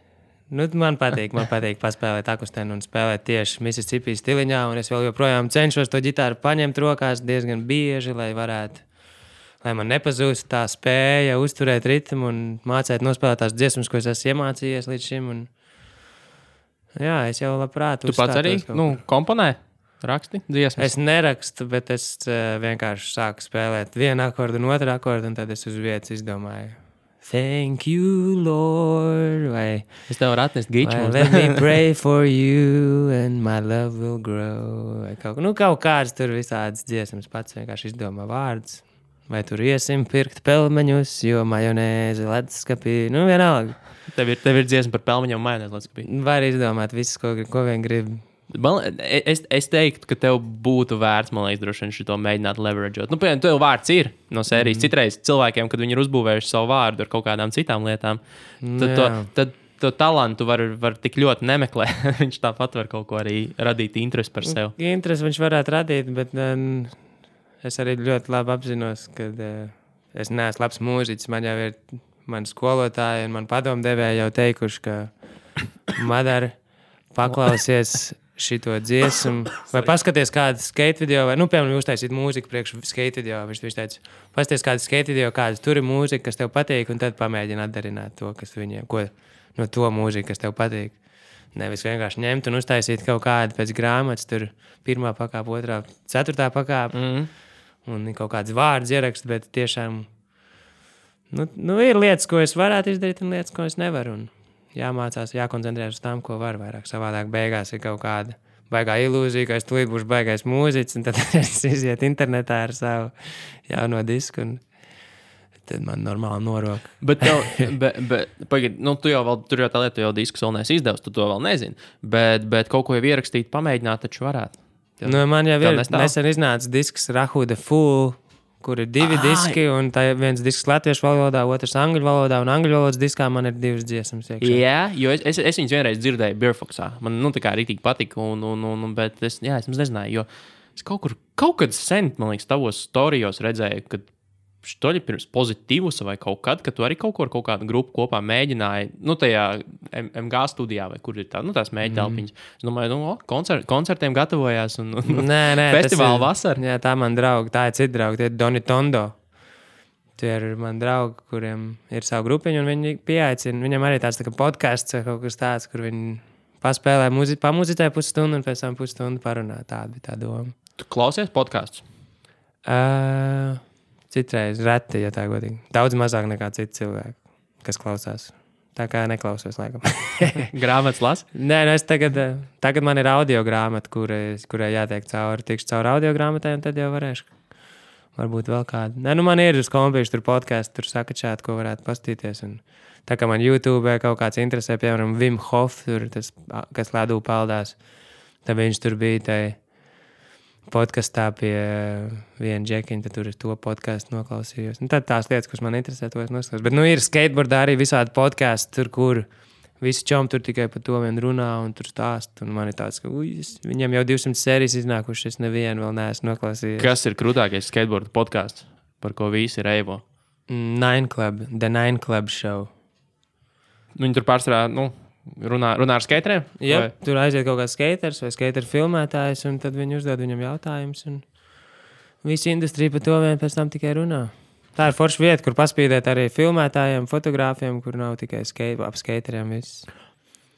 Man patīk paspēlēt akustēnu un spēlēt tieši Mississippi stiliņā, un es vēl joprojām cenšos to ģitāru paņemt rokās diezgan bieži, lai man nepazūst tā spēja uzturēt ritmu un mācīt nospēlēt tās dziesmas, ko es esmu iemācījies līdz šim. Jā, es jau labprāt uzstātos. Tu pats arī komponē, raksti dziesmas? Es nerakstu, bet es vienkārši sāku spēlēt vienu akordu un otru akordu, un tad es uz vietas izdomāju. Thank you, Lord. Vai es tev varu atnest giču. Let me pray for you and my love will grow. Vai kaut kāds tur visādas dziesmas pats vienkārši izdomā vārdus. Vai tur iesim pirkt pelmeņus, jo majonēzi leduskapī. Vienalga. Tev ir dziesma par pelmeņiem un majonēzi leduskapī. Var izdomāt visu, ko vien grib. Es teiktu, ka tev būtu vērts, man liekas, droši vien šito mēģināt leverageot. Piemēram, tev vārds ir no sērijas. Citreiz cilvēkiem, kad viņi ir uzbūvējuši savu vārdu ar kaut kādām citām lietām, tad to talantu var tik ļoti nemeklēt. Viņš tāpat var kaut ko arī radīt interesi par sevi. Interesi viņš varētu radīt, bet es arī ļoti labi apzinos, ka es neesmu labs mūziķis. Man jau ir mani skolotāji un mani padomdevēji jau teikuši, ka Madara, paklausies šito dziesmu, vai paskaties kādu skate video, vai, piemēram, uztaisīt mūziku priekš skate video. Viņš teica, paskaties kādu skate video, kāda tur ir mūzika, kas tev patīk, un tad pamēģini atdarināt to, kas viņiem, no to mūziku, kas tev patīk. Nevis vienkārši ņemt un uztaisīt kaut kādu pēc grāmatas, tur 1. pakāpe, 2., 4. pakāpe, un kaut kāds vārds ierakst, bet tiešām, ir lietas, ko es varētu izdarīt, un lietas, ko es nevaru, un jāmācās, jākoncentrēs uz tām, ko var vairāk. Savādāk beigās ir kaut kāda baigā ilūzija, ka es tūlīt būšu baigais mūziķis, un tad es iziet internetā ar savu jauno disku, un tad man normāli norok. Bet pagaid, tu jau vēl, tur jau tā lieta, tu jau diskus vēl neesi izdevusi, tu to vēl nezini, bet kaut ko jau ierakstīt, pamēģināt, taču varētu. Man jau ir nesen iznāca disks Rahuda Full, kur ir 2 diski, un tā ir viens disks latviešu valodā, otrs angļu valodā, un angļu valodas diskā man ir 2 dziesmas iekšā. Jā, jo es viņus vienreiz dzirdēju Beerfoxā. Man, tā kā rītīgi patika, bet es nezināju, jo es kaut kad sen, man liekas, tavos storijos redzēju, kad štoļi pirms pozitīvus vai kaut kad, kad tu arī kaut kādu grupu kopā mēģināji, tajā MG studijā, vai kur ir tā, tās mēģitelpiņas. Es domāju, koncertiem gatavojās un festivāla vasara. Jā, tā man draugi, tā ir cita draugi, tie ir Doni Tondo. Tie ir mani draugi, kuriem ir savu grupiņu, un viņi pieaicina. Viņam arī tāds tā kā podcasts vai kaut kas tāds, kur viņi paspēlē pamuzicē pusstundu un pēc tam pusstundu parunā. Tāda bija tā doma. Tu klausies podcasts? Citreiz reti, ja tā godīgi. Daudz mazāk nekā citi cilvēki, kas klausās. Tā kā neklausos, laikam. Grāmatas lasi? Nē, es tagad man ir audio grāmata, kurai jātiek cauri. Tikšu cauri audio grāmatai, un tad jau varēšu. Varbūt vēl kādu. Nē, man ir uz kompīšu, tur podcastu, tur sakačāt, ko varētu pastīties. Un tā kā man YouTube kaut kāds interesē, piemēram, Wim Hof, tur tas, kas ledū peldās, tad viņš tur bija tai podkastā pie viena džekiņa, tad tur ir to podcastu noklausījos. Un tad tās lietas, kas man interesē, to es noskatos. Bet ir skateboardā arī visādi podkasti, tur, kur visi čomi tur tikai par to vien runā un tur stāst. Un man ir tāds, ka viņam jau 200 sērijas iznākušas, es nevienu vēl neesmu noklausījies. Kas ir krūtākais skateboarda podcasts, par ko visi reivo? Nine Club, The Nine Club Show. Viņi tur pārsvarā, runā ar skateriem? Jā, tur aiziet kaut kāds skaters vai skateru filmētājs, un tad viņi uzdod viņam jautājumus, un visa industrija par to vien pēc tam tikai runā. Tā ir forša vieta, kur paspīdēt arī filmētājiem, fotogrāfiem, kur nav tikai ap skateriem viss.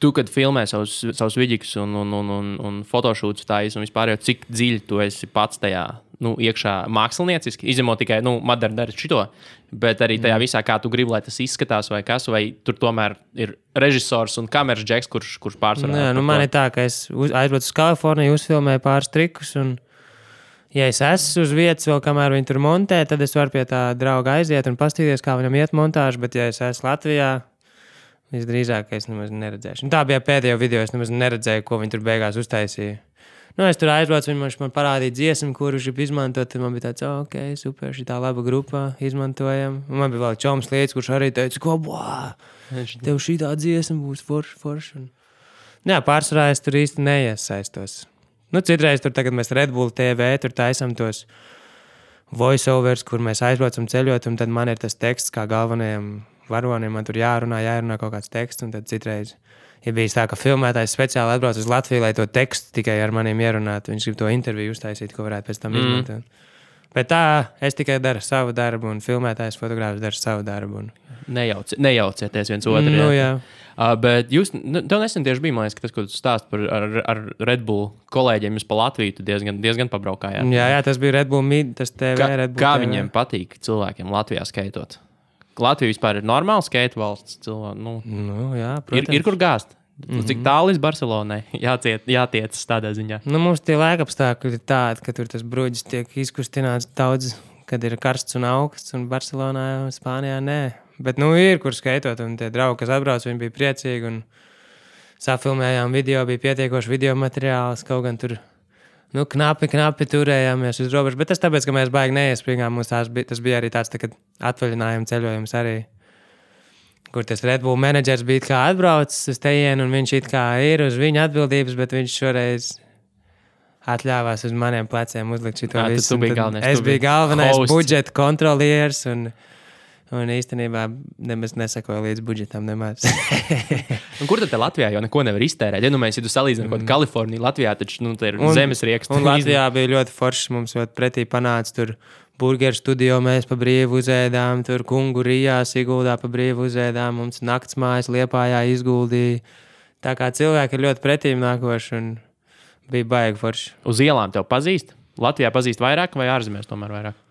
Tu, kad filmē savus vidīgus un fotošūtus tājas, un vispār jau cik dziļi tu esi pats tajā, iekšā mākslinieciski, izņemot tikai, Madara dara šito, bet arī tajā visā, kā tu gribi, lai tas izskatās vai kas, vai tur tomēr ir režisors un kameras džeks, kurš pārsvarā. Nē, man ir tā, ka es aizbraucu uz Kaliforniju, uzfilmēju pāris trikus, un ja es esmu uz vietas vēl, kamēr viņi tur montē, tad es varu pie tā drauga aiziet un pastīties, kā viņam iet montāžu, bet ja es esmu Latvijā, visdrīzāk, ka es nemaz neredzēšu. Un tā bija pēdējo video, es nemaz neredzēju, ko viņi tur beigās uztaisīja. Es tur aizbraucu, viņš man parādīja dziesmu, kuru viņš izmantot, tad man bija tāds, ok, super, šī tā laba grupa, izmantojam. Un man bija vēl čoms lietas, kurš arī teica, ko, tev šī tā dziesma būs forša. Jā, pārsvarā es tur īsti neiesaistos. Citreiz tur tagad mēs Red Bull TV, tur taisam tos voiceovers, kur mēs aizbraucam ceļot, un tad man ir tas teksts kā galvenajam varonim, man tur jārunā kaut kāds teksts, un tad citreiz ir bijis tā, ka filmētājs speciāli atbrauc uz Latviju, lai to tekstu tikai ar maniem ierunātu. Viņš grib to interviju uztaisīt, ko varētu pēc tam izmantot. Bet tā, es tikai daru savu darbu, un filmētājs fotogrāfs dara savu darbu. Nejaucieties viens otru. Jā. Bet tev nesen tieši bija, man liekas, ka tas, ko tu stāst par ar Red Bull kolēģiem, jūs pa Latviju diezgan pabraukājāt. Jā, tas bija Red Bull tas TV, Red Bull kā TV. Viņiem patīk cilvēkiem Latvijā skaitot? Latvija vispār ir normāla skate valsts. Jā, protams. Ir kur gāzt. Cik tālu līdz Barcelonai jātiecas tādā ziņā? Mums tie laikapstākļi ir tādi, ka tur tas bruģis tiek izkustināts daudz, kad ir karsts un augsts, un Barcelonā, Spānijā nē. Bet ir kur skaitot, un tie draugi, kas atbrauc, viņi bija priecīgi, un safilmējām video, bija pietiekoši video materiāls, kaut gan tur knapi turējāmies uz robežu, bet tas tāpēc, ka mēs baigi neiespringām, mums tas bija arī tāds tā, atvaļinājuma ceļojums arī, kur tas Red Bull menedžers bija kā atbraucis uz tejienu, un viņš it kā ir uz viņa atbildības, bet viņš šoreiz atļāvās uz maniem pleciem uzlikt šito visu. Tu biji galvenais. Es biju galvenais budžeta kontrolieris, un Un īstenībā nemaz nesakoja līdz budžetam nemaz. Un kur tad Latvijā jau neko nevar iztērēt? Ja tu salīdzini kaut kādu Kaliforniju, Latvijā taču te ir zemes rieksts. Un Latvijā bija ļoti foršs, mums ļoti pretī panāca tur burgeru studio, mēs pa brīvu uzēdām, tur kungu Rijā, Siguldā pa brīvu uzēdām, mums naktsmājas Liepājā izguldīja. Tā kā cilvēki ir ļoti pretīm nākoši un bija baigi forši. Uz ielām tev pazīst? Latvijā pazīst vairāk vai ārzemēs tomēr vairāk?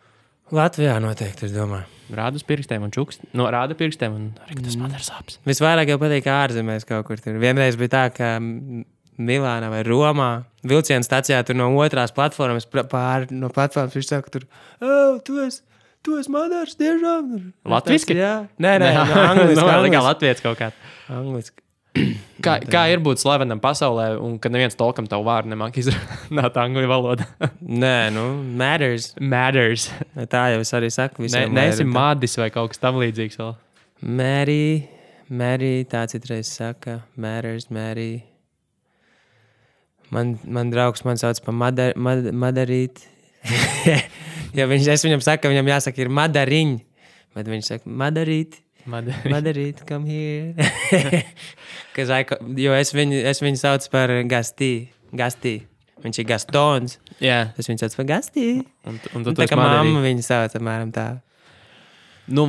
Latvijā noteikti, es domāju. Rāda uz pirkstiem un čukst. No, rāda pirkstiem un arī tas man ir sāpes. Visvairāk jau patīk ārzemēs kaut kur tur. Vienreiz bija tā, ka Milānā vai Romā vilciena stacijā tur no otrās platformas pāri no platformas viņš saka tur, tu esi Madars tiešām? Latviski? Jā. Nē, angliski. Kā latvietis kaut kā. Angliski. Kā ir būt slavenam pasaulē, un kad neviens tolkam tavu vārdu nemāk izrunāt angļu valodā? Nē, matters. Matters. Tā jau es arī saku visiem. Neesi Madis vai kaut kas tam līdzīgs vēl? Mary, tā citreiz saka. Matters, Mary. Man draugs man sauc pa Madarīt. Ja es viņam saku, ka viņam jāsaka ir Madariņ, bet viņš saka Madarīt. Madarīt, come here. Jo es viņu saucu par Gastī. Viņš ir Gastons. Jā. Es viņu saucu par Gastī. Un tā kā mamma viņu sauc, apmēram tā. Nu,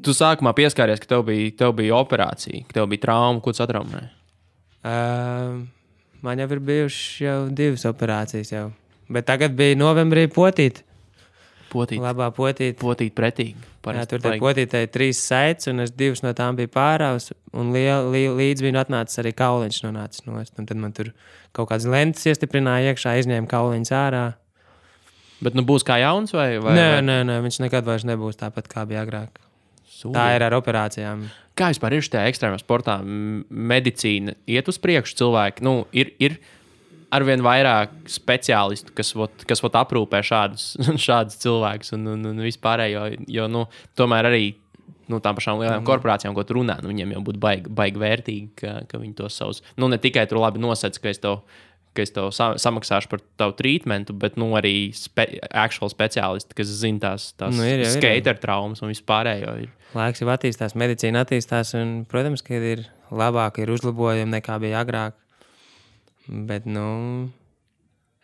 tu sākumā pieskāries, ka tev bija operācija, ka tev bija trauma, ko tu satraumēji? Man jau ir bijušas jau 2 operācijas jau. Bet tagad bija novembrī potīt. Labā potīt. Potīt pretīgi. Jā, tur tai potītei 3 saites, un es 2 no tām biju pāraus, un līdz viņu atnācis arī kauliņš nonācis nost. Un tad man tur kaut kādas lentes iestiprināja iekšā, izņēma kauliņus ārā. Bet būs kā jauns vai? Nē, viņš nekad vairs nebūs tāpat, kā bija agrāk. Sūdien. Tā ir ar operācijām. Kā vispār ir šajā ekstrēmā sportā? Medicīna iet uz priekšu cilvēki? Ir arvien vairāk speciālistu, kas aprūpē šādus cilvēkus un vispārējo, jo tomēr arī tām pašām lielām korporācijām, ko tu runā, viņiem jau būtu baigi vērtīgi, ka viņi tos savus, ne tikai tur labi nosēc, ka es tev samaksāšu par tavu treatmentu, bet arī actual speciālisti, kas zina tās skater traumas un vispārējo. Laiks jau attīstās, medicīna attīstās un, protams, ka ir labāk, ir uzlabojumi nekā bija agrāk. Bet,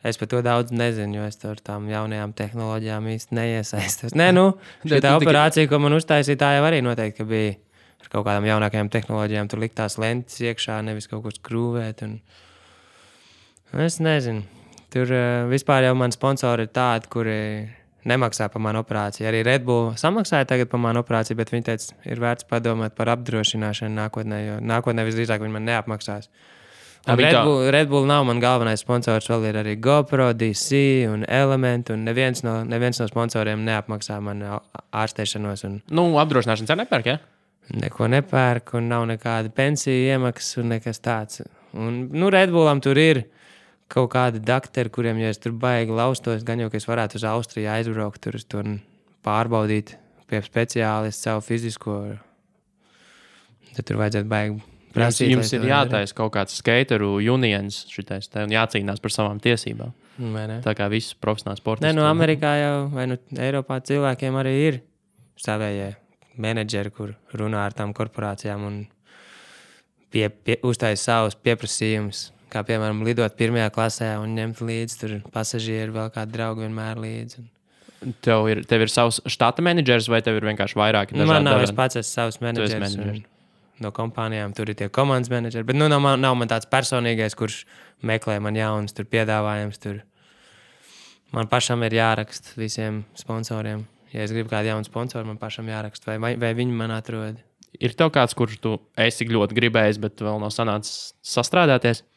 es par to daudz nezinu, jo es tur tām jaunajām tehnoloģijām īsti neiesaistos. Šī operācija, ko man uztaisīja, tā jau arī noteikti, ka bija ar kaut kādām jaunākajām tehnoloģijām. Tur liktās lentes iekšā, nevis kaut ko skrūvēt. Es nezinu. Tur vispār jau man sponsori ir tādi, kuri nemaksā par manu operāciju. Arī Red Bull samaksāja tagad par manu operāciju, bet viņi teica, ir vērts padomāt par apdrošināšanu nākotnē, jo nākotnē visdrīzāk viņi man neapmaksās. Red Bull nav man galvenais sponsors, vēl ir arī GoPro, DC un Element, un neviens no sponsoriem neapmaksā man ārstēšanos. Apdrošināšanas arī nepērk, ja? Neko nepērk, un nav nekāda pensija iemaksas un nekas tāds. Un, Red Bullam tur ir kaut kādi dakteri, kuriem, ja es tur baigi laustos, gan jau, ka es varētu uz Austriju aizbraukt, tur pārbaudīt pie speciālista savu fizisko. Tad tur vajadzētu baigi prasīt. Jums ir jātaisa kaut kāds skateru unions šitais, un jācīnās par savām tiesībām. Tā kā visus profesionāls sportists. Amerikā jau, vai Eiropā cilvēkiem arī ir savējie menedžeri, kur runā ar tām korporācijām un uztaisa savus pieprasījumus. Kā, piemēram, lidot 1. klasē un ņemt līdzi tur pasažieri, vēl kādu draugu vienmēr līdzi. Tev ir savs štata menedžers vai tev ir vienkārši vairāki dažādi? Man nav, es pats esmu savs menedžers. No kompānijām tur ir tie komandas menedžeri, bet nav man tāds personīgais, kurš meklē man jaunas tur piedāvājums. Tur. Man pašam ir jāraksta visiem sponsoriem. Ja es gribu kādu jaunu sponsoru, man pašam jāraksta, vai viņi man atrod. Ir tev kāds, kurš tu esi ļoti gribējis, bet vēl nav sanācis sastrādāties?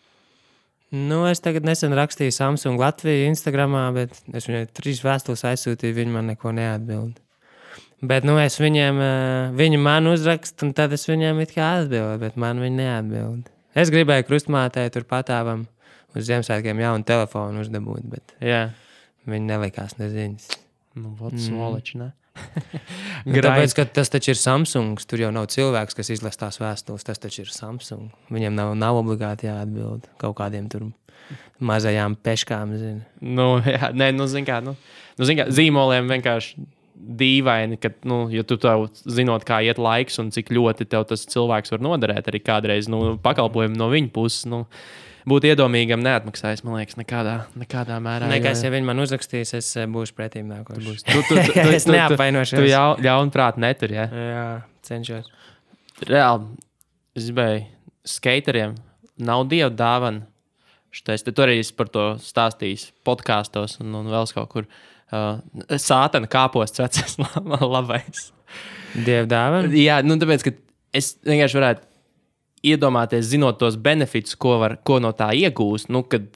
Es tagad nesen rakstīju Samsung Latviju Instagramā, bet es viņai 3 vēstules aizsūtīju, viņi man neko neatbild. Bet, es viņiem, viņi man uzrakst, un tad es viņiem it kā atbildu, bet man viņi neatbild. Es gribēju krustmātei tur patāvam uz Ziemassvētkiem jaunu telefonu uzdabūt, bet viņi nelikās neziņas. Svoliči, ne? Tāpēc, ka tas taču ir Samsungs, tur jau nav cilvēks, kas izlas tās vēstules, tas taču ir Samsung. Viņiem nav obligāti jāatbild kaut kādiem tur mazajām peškām, zini. Zin kā, zīmoliem vienkārši dīvaini, ka, ja tu tev zinot, kā iet laiks un cik ļoti tev tas cilvēks var noderēt arī kādreiz, pakalpojumu no viņa puses, būt iedomīgam neatmaksājis, man liekas, nekādā mērā. Nekas, ja viņi man uzrakstīs, es būšu pretīm nākošs. Es neapvainošos. Tu ļaunprāt netur, ja? Jā, cenšos. Reāli, es gribēju, skateriem nav dieva dāvana. Tu arī esi par to stāstījis podkāstos un vēl kaut kur. Sātana kāposts vecais labais. Dieva dāvana? Jā, tāpēc, ka es vienkārši varētu iedomāties, zinot tos benefits, ko no tā iegūst, kad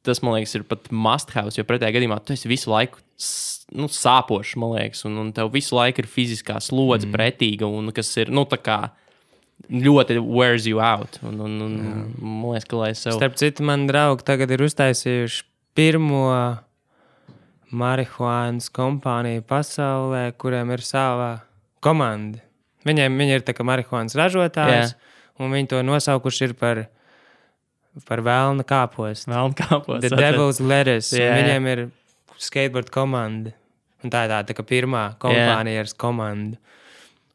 tas, man liekas, ir pat must have, jo pretējā gadījumā tu esi visu laiku sāpošs, man liekas, un tev visu laiku ir fiziskā slodze pretīga, un kas ir, tā kā ļoti wears you out. Man liekas, ka lai es sev... Starp citu, man draugi tagad ir uztaisījuši pirmo marihuānas kompāniju pasaulē, kuriem ir sava komanda. Viņi ir tā kā marihuānas ražotājs, un viņi to nosaukuši ir par velna kāpostu. Velna kāpostu. The Devil's Lettuce. Viņiem ir skateboard komanda. Un tā ir tā kā pirmā kompānija ar komandu.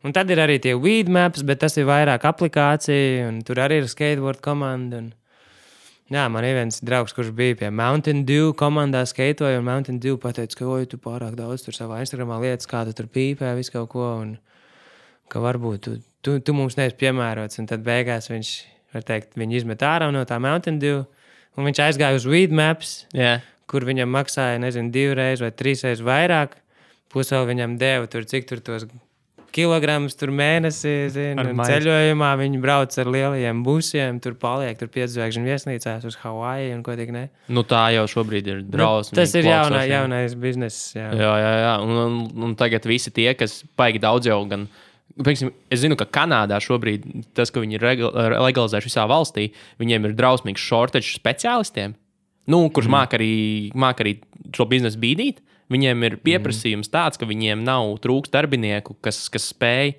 Un tad ir arī tie weed maps, bet tas ir vairāk aplikācija, un tur arī ir skateboard komanda. Jā, man ir viens draugs, kurš bija pie Mountain Dew komandā skaitoja, un Mountain Dew pateica, ka tu pārāk daudz tur savā Instagramā lietas, kā tu tur pīpē, visu kaut ko, un ka varbūt tu mums neesi piemērots, un tad beigās viņš, var teikt, viņu izmet ārā no tā Mountain Dew, un viņš aizgāja uz Weed Maps, kur viņam maksāja, 2 vai 3 reizes vairāk, plus vēl viņam deva tur, cik tur tos kilogramus tur mēnesī, un ceļojumā viņi brauc ar lielajiem busiem, tur paliek, tur 5 zvaigžņu viesnīcās uz Hawaii un ko tik ne. Tā jau šobrīd ir drausmīgi. Tas ir jaunais bizness, jā. Jā. Un tagad visi tie, kas baigi daudz jau gan... Es zinu, ka Kanādā šobrīd tas, ka viņi ir legalizējuši visā valstī, viņiem ir drausmīgs shortage speciālistiem, kurš māk arī šo biznesu bīdīt. Viņiem ir pieprasījums tāds, ka viņiem nav trūks darbinieku, kas spēj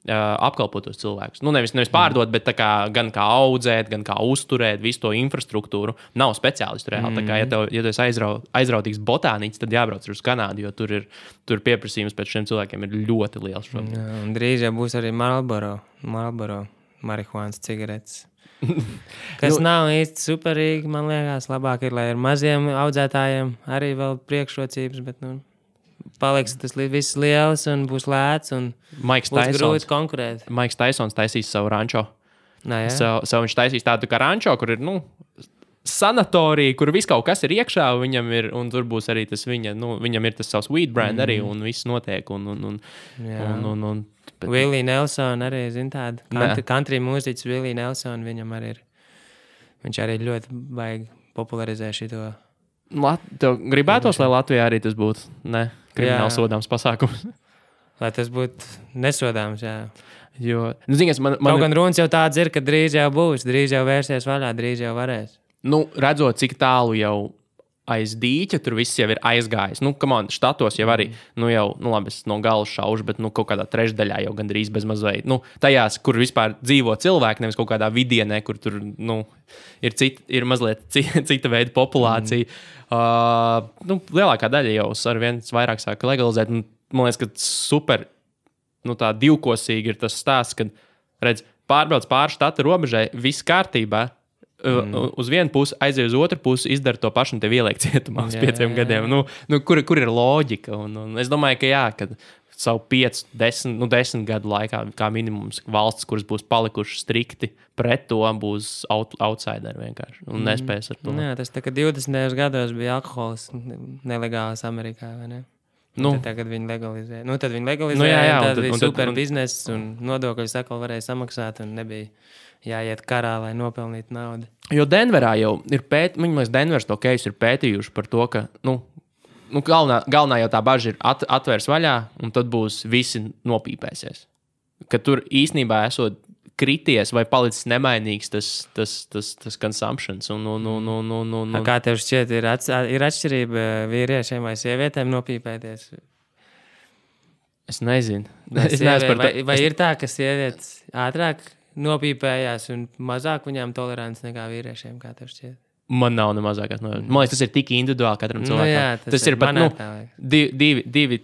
apkalpot tos cilvēkus. Nevis pārdot, bet gan kā audzēt, gan kā uzturēt visu to infrastruktūru. Nav speciālistu reāli. Tā kā, ja tu esi aizrautīgs botāniķis, tad jābrauc uz Kanādu, jo tur pieprasījums pēc šiem cilvēkiem ir ļoti liels šobrīd. Un drīz jau būs arī Marlboro marihuānas cigaretes. Kas nav īsti superīgi, man liekas, labāk ir, lai ar maziem audzētājiem arī vēl priekšrocības, bet, paliks tas viss liels un būs lēts un būs grūti konkurēt. Maiks Taisons taisīs savu rančo. Viņš taisīs tādu kā rančo, kur ir, sanatorija, kur viss kaut kas ir iekšā, un tur būs arī tas viņam ir tas savs weed brand arī, un viss notiek, Willie Nelson arī, tādu country mūziķis Willie Nelson, viņam arī ir, viņš arī ļoti baigi popularizē šito. Tev gribētos, lai Latvijā arī tas būtu, krimināli sodāms pasākums? Lai tas būtu nesodāms, jā. Jo, kaut gan runas jau tāds ir, ka drīz jau būs, drīz jau vērsies vaļā, drīz jau varēs. Redzot, cik tālu jau aiz dīķa, tur viss jau ir aizgājis. Štatos jau arī, labi, es no galas šaušu, bet kaut kādā trešdaļā jau gandrīz bez mazveit. Tajās, kur vispār dzīvo cilvēki, nevis kaut kādā vidienē, kur tur, ir mazliet cita veida populācija. Lielākā daļa jau ar viens vairāk sāka legalizēt. Man liekas, ka super, tā divkosīgi ir tas stāsts, kad, redz, pārbrauc pāri štata robežai, viss kārtībā, uz vienu pusi, aiziet uz otru pusi, izdara to pašu un tev ieliek cietumā uz 5 gadiem. Kur ir loģika? Un es domāju, ka kad savu 5, 10 gadu laikā, kā minimums, valsts, kuras būs palikušas strikti pret to, būs outsideri vienkārši un nespēs ar to. Jā, tas tā kā 20. gados bija alkohols nelegāls Amerikā, vai ne? Tagad viņi legalizē. Tad viņi legalizē, tad bija super bizness un nodokļus atkal varēja samaksāt un nebija jāiet karā, lai nopelnītu naudu. Jo Denverā jau ir Denvers to case ir pētījuši par to, ka, galvenā jau tā baža ir atvērs vaļā, un tad būs visi nopīpēsies. Ka tur īstenībā esot krities vai palicis nemainīgs tas consumptions. Kā tev šķiet, ir atšķirība vīriešiem vai sievietēm nopīpēties? Es nezinu. Vai ir tā, ka sievietes ātrāk nopīpējās un mazāk viņām tolerants nekā vīriešiem, kā tev šķiet? Man nav ne mazākās nojausmas. Man liekas, tas ir tik individuāli katram cilvēkam. Tas ir pat divi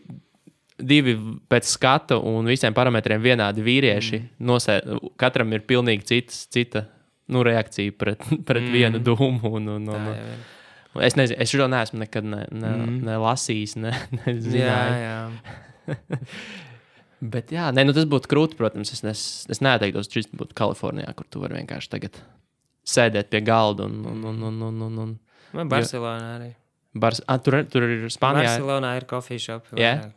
divi pēc skata un visiem parametriem vienādi vīrieši. Katram ir pilnīgi cita reakcija pret vienu dūmu. Es nezinu, es šo neesmu nekad ne lasījis, ne zināju. Jā. Bet jā, tas būtu krūti, protams. Es neteiktos, ka šis būtu Kalifornijā, kur tu vari vienkārši tagad sēdēt pie galda un Barcelonā arī. Tur ir Spānijā. Barcelonā ir coffee shop. Yeah.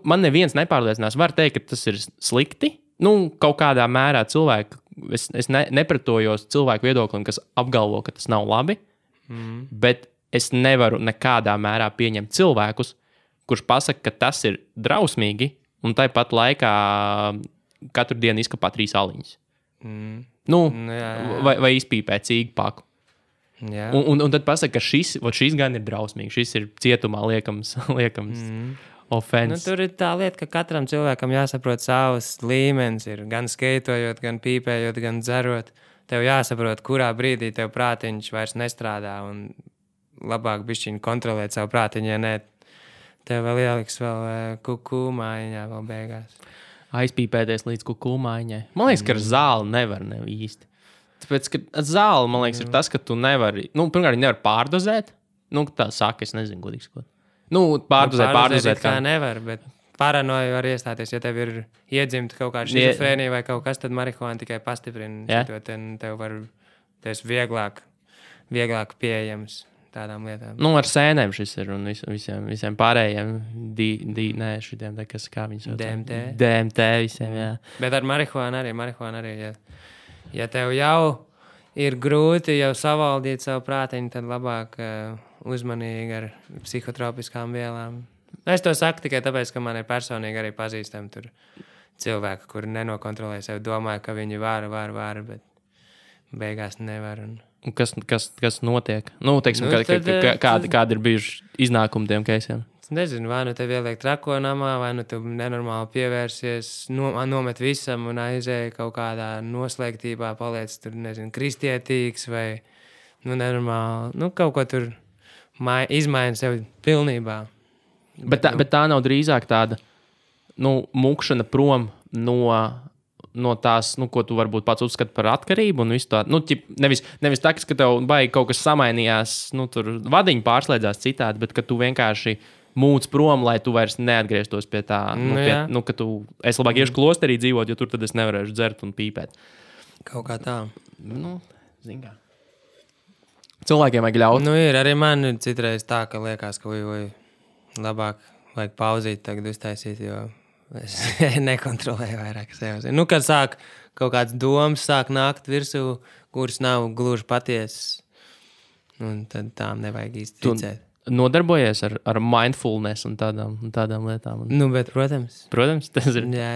Man neviens nepārliecinās. Var teikt, ka tas ir slikti. Kaut kādā mērā cilvēku. Es nepretojos cilvēku viedoklim, kas apgalvo, ka tas nav labi. Bet es nevaru nekādā mērā pieņemt cilvēkus, kurš pasaka, ka tas ir drausmīgi, un tāpat laikā katru dienu izkapā 3 aliņas. Vai izpīpē cīgu paku. Jā. Un tad pasaka, ka šis gan ir drausmīgs, šis ir cietumā liekams ofens. Tur ir tā lieta, ka katram cilvēkam jāsaprot savs līmenis. Ir gan skeitojot, gan pīpējot, gan dzerot. Tev jāsaprot, kurā brīdī tev prātiņš vairs nestrādā un labāk bišķiņ kontrolēt savu prātiņu, ja ne, tev vēl ieliks vēl kuku mājiņā vēl beigās. Aizpīpēties līdz kuku mājiņai. Man liekas, ka ar zāli nevar īsti. Tāpēc, ka ar zāli, man liekas, ir tas, ka tu nevari, pirmkārt, nevar pārdozēt. Tā saka, es nezinu, godīgi sakot. Pārdozēt kā nevar, bet paranoja var iestāties, ja tev ir iedzimta kaut kāda šizofrēnija vai kaut kas, tad marihuāna tikai pastiprina. Tev var, tas vieglāk pieejams tādām lietām. Ar sēnēm šis ir un visiem pārējiem šitiem, kas kā viņus sauc. DMT visiem, jā. Bet ar marihuānu arī, ja tev jau ir grūti jau savaldīt savu prātiņu, tad labāk uzmanīgi ar psihotropiskām vielām. Es to saku tikai tāpēc, ka man ir personīgi arī pazīstami tur cilvēki, kuri nenokontrolē sevi, domāju, ka viņi var, bet beigās nevar. Un kas notiek? Teiksim, kādi ir bijuši iznākumi tiem keisiem? Es nezinu, vai tev ieliek trako namā, vai tu nenormāli pievērsies, nomet visam un aizēji kaut kādā noslēgtībā, paliec tur, nezinu, kristietīgs vai nenormāli, kaut ko tur izmaina sevi pilnībā. Bet tā nav drīzāk tāda mukšana prom no tās, ko tu varbūt pats uzskati par atkarību un visu tādu. Nevis tā, ka tev baigi kaut kas samainījās, tur vadiņi pārslēdzās citādi, bet ka tu vienkārši mūc prom, lai tu vairs neatgrieztos pie tā. Ka es labāk iešu klosterī dzīvot, jo tur tad es nevarēšu dzert un pīpēt. Kaut kā tā. Zin kā. Cilvēkiem vajag ļaut. Ir arī man citreiz tā, ka liekas, ka labāk vajag pauzīt tagad uztaisīt, jo es nekontrolēju vairāk sevi. Kad sāk kaut kāds domas sāk nākt virsū, kuras nav gluži patiesas, tad tām nevajag īsti ticēt. Nodarbojies ar mindfulness un tādām lietām? Bet, protams. Protams, tas ir jā.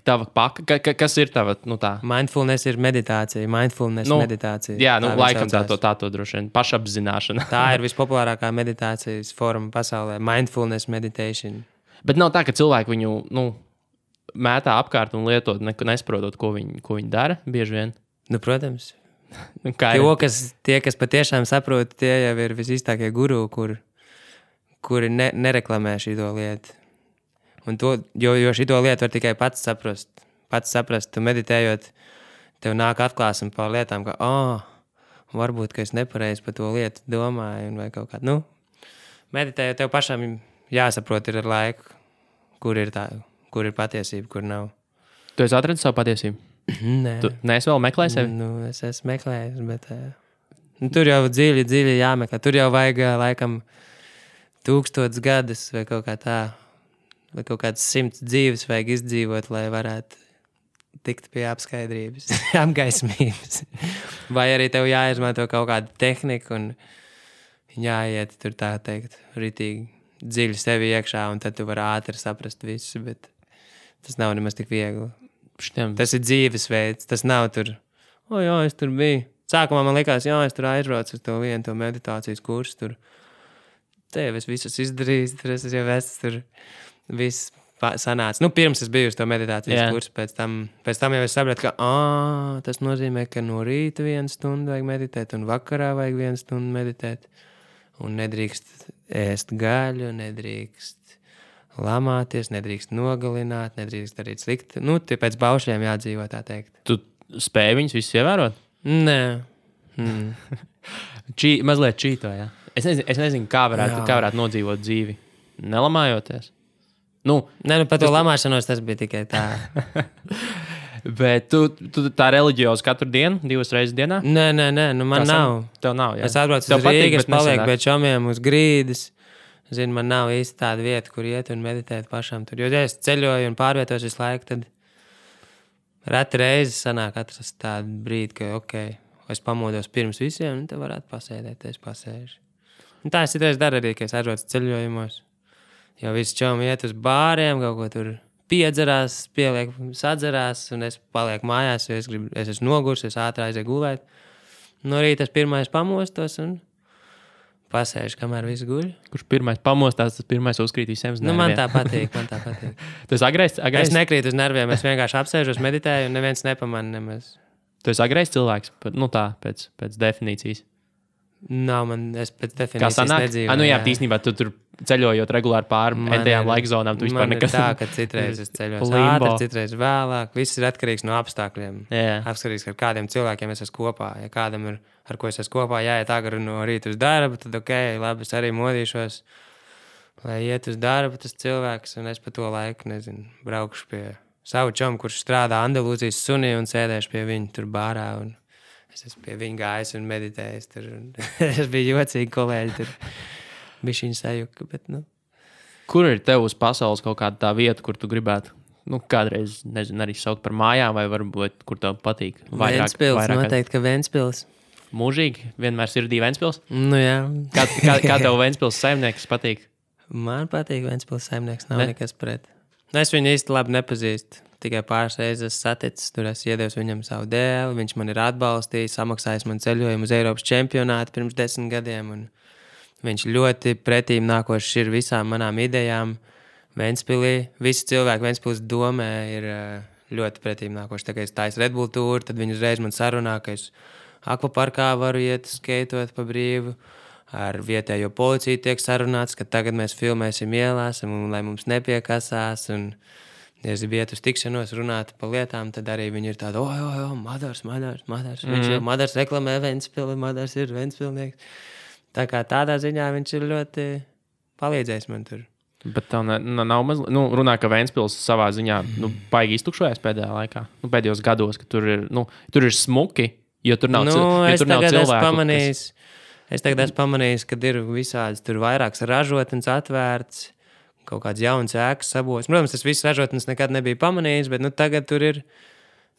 Tava paka. Kas ir tava, tā? Mindfulness ir meditācija. Meditācija. Jā, laikam tā to droši vien pašapzināšana. Tā ir vispopulārākā meditācijas forma pasaulē. Mindfulness meditation. Bet nav tā, ka cilvēki viņu, mētā apkārt un lietot, nesaprotot, ko viņi dara bieži vien? Protams. Tie, kas patiešām saprot, tie jau ir visīstākie guru, kuri nereklamē šito lietu. Jo šito lietu var tikai pats saprast. Tu meditējot, tev nāk atklāsme par lietām, ka varbūt, ka es nepareizi par to lietu domāju. Vai kaut kā. Meditējot, tev pašam jāsaprot ir ar laiku, kur ir patiesība, kur nav. Tu esi atradis savu patiesību? Nē. Tu neesi vēl meklējis sevi? Es esmu meklējis, bet tur jau dziļi jāmeklē. Tur jau vajag laikam 1000 gadus vai kaut kā tā, vai kaut kāds 100 dzīves vajag izdzīvot, lai varētu tikt pie apskaidrības, apgaismības. Vai arī tev jāizmanto kaut kāda tehnika un jāiet tur tā teikt ritīgi dziļi sevi iekšā, un tad tu vari ātri saprast visu, bet tas nav nemaz tik viegli. Tas ir dzīvesveids, tas nav tur, jā, es tur biju. Sākumā man likās, es tur aizbraucu uz to meditācijas kursu, tur te jau es visus izdarījis, tur es jau tur viss sanāca. Pirms es biju uz to meditācijas kursu, pēc tam jau es sapratu, ka tas nozīmē, ka no rīta 1 stundu vajag meditēt, un vakarā vajag 1 stundu meditēt, un nedrīkst ēst gaļu, nedrīkst lamāties, nedrīkst nogalināt, nedrīkst darīt slikti. Nu, tie pēc baušļiem jādzīvo, tā teikt. Tu spēji viņus visus ievērot? Nē. Mazliet čīto, jā. Es nezinu, kā varētu nodzīvot dzīvi, nelamājoties. Nē, par to lamāšanos tas bija tikai tā. Bet tu tā reliģiozi katru dienu, 2 reizes dienā? Nē, man nav. Tev nav, jā. Es atbraucu uz Rīgas, es palieku pie čomiem uz grīdas. Zinu, man nav īsti tāda vieta, kur iet un meditēt pašam tur. Jo, ja es ceļoju un pārvietos visu laiku, tad reti reizes sanāk atrast tādu brīdi, ka, es pamodos pirms visiem, un te varētu pasēdēt, es pasēžu. Un tā es citreiz daru arī, ka es atbraucu ceļojumos. Jo visi čomi iet uz bāriem, kaut ko tur piedzerās, sadzerās, un es palieku mājās, jo es esmu nogurs, es ātri aizēju gulēt. No rīta es pirmais pamostos un pasēžu, kamēr viss guļ. Kurš pirmais pamostās, tas pirmais uzkrīt visiem uz nerviem. Man tā patīk. Tu esi agrais? Es nekrītu uz nerviem, es vienkārši apsēžos, meditēju, un neviens nepamana nemaz. Tu esi agrais cilvēks, pēc definīcijas. Nav, es pēc definīcijas nedzīvoju. Jā, tīsnībā tu tur ceļojot regulāri pāri entajām laika zonām, tu vispār nekas. Man ir tā, ka citreiz es ceļos ātri, citreiz vēlāk. Viss ir atkarīgs no apstākļiem. Atkarīgs, ar kādiem cilvēkiem es esmu kopā. Ja kādam ir, ar ko es esmu kopā, jāiet agri no rīta uz darbu, tad labi, es arī modīšos, lai iet uz darbu tas cilvēks, un es pa to laiku, braukšu pie savu čomu, kurš strādā Andalūzijas sunī un sēdēšu pie viņa tur bārā, un es esmu pie viņa gājis un meditējis tur. Es biju jocīgi kolēģi tur. Bišķiņ sajuka, bet Kur ir tev uz pasaules kaut kāda tā vieta, kur tu gribētu, kādreiz, arī saukt par mājām, vai varbūt, kur tev patīk? Ventspils, noteikti, ka Ventspils. Mūžīgi? Vienmēr sirdī Ventspils? Jā. Kā tev Ventspils saimnieks patīk? Man patīk Ventspils saimnieks, nav nekas pret. Es viņu īsti labi nepazīstu. Tikai pāris reizes saticis, tur es iedevu viņam savu dēli, viņš man ir atbalstījis, samaksājis man ceļojumu uz Eiropas čempionātu pirms 10 gadiem, un viņš ļoti pretīm nākošs ir visām manām idejām Ventspilī. Visi cilvēki Ventspils domē ir ļoti pretīm nākoši. Tā kā es taisu Red Bull tūru, tad viņi uzreiz man sarunā, ka es akvaparkā varu iet skeitot pa brīvu. Ar vietējo policiju tiek sarunāts, ka tagad mēs filmēsim ielās, un lai mums nepiekasās, un ja es gribu iet uz tikšanos, runāt par lietām, tad arī viņi ir tādi, Madars. Viņš jau Madars reklamē Ventspili, Madars ir Ventspilnieks. Tā kā tādā ziņā viņš ir ļoti palīdzējis man tur. Bet tev nav mazliet, runā, ka Ventspils savā ziņā, baigi iztukšojas pēdējā laikā, pēdējos gados, ka tur ir smuki, jo tur nav cilvēku. Es tagad esmu pamanījis, ka ir visādas tur vairākas ražotnes atvērts, kaut kāds jauns ēkas sabūvēts. Protams, tas viss ražotnes nekad nebija pamanījis, bet tagad tur ir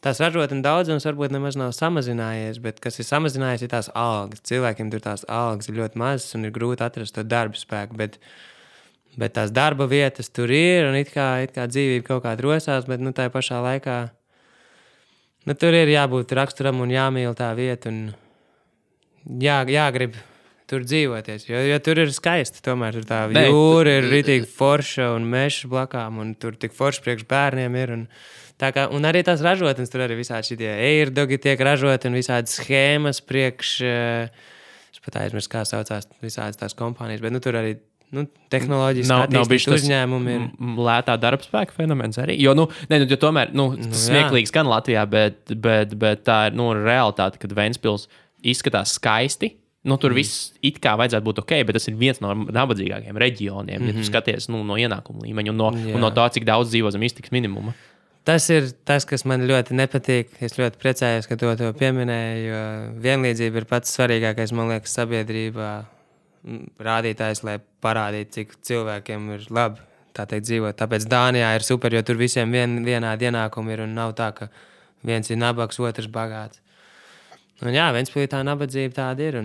tās ražotnes daudzums varbūt nemaz nav samazinājies, bet kas ir samazinājies, ir tās algas. Cilvēkiem tur tās algas ir ļoti mazas un ir grūti atrast to darba spēku, bet tās darba vietas tur ir un it kā dzīvība kaut kā rosās, bet tā pašā laikā tur ir jābūt raksturam un jāmīl tā vieta un jāgrib tur dzīvoties, jo tur ir skaisti. Tomēr tur tā jūra ir ritīgi forša un mežs blakām, un tur tik forši priekš bērniem ir. Un arī tās ražotnes, tur arī visādi šitie airdogi tiek ražoti un visādi schēmas priekš, es pat aizmirsu, kā saucās visādas tās kompānijas, bet tur arī tehnoloģiski attīstīt uzņēmumi ir. Lētā darbspēka fenomens arī. Jo, tomēr, smieklīgs gan Latvijā, bet tā ir, realitāte, kad Ventspils izskatās skaisti. Tur viss it kā vajadzētu būt ok, bet tas ir viens no nabadzīgākajiem reģioniem, ja tu skaties no ienākumu līmeņa un no tā, cik daudz dzīvo zem iztikas minimuma. Tas ir tas, kas man ļoti nepatīk. Es ļoti priecājos, ka to pieminēju, jo vienlīdzība ir pats svarīgākais, man liekas, sabiedrībā rādītājs, lai parādītu, cik cilvēkiem ir labi tā teikt dzīvot. Tāpēc Dānijā ir super, jo tur visiem vienādi ienākumi ir un nav tā, ka viens ir nabaks, otrs bagāts. Un Ventspilī tā nabadzība tāda ir.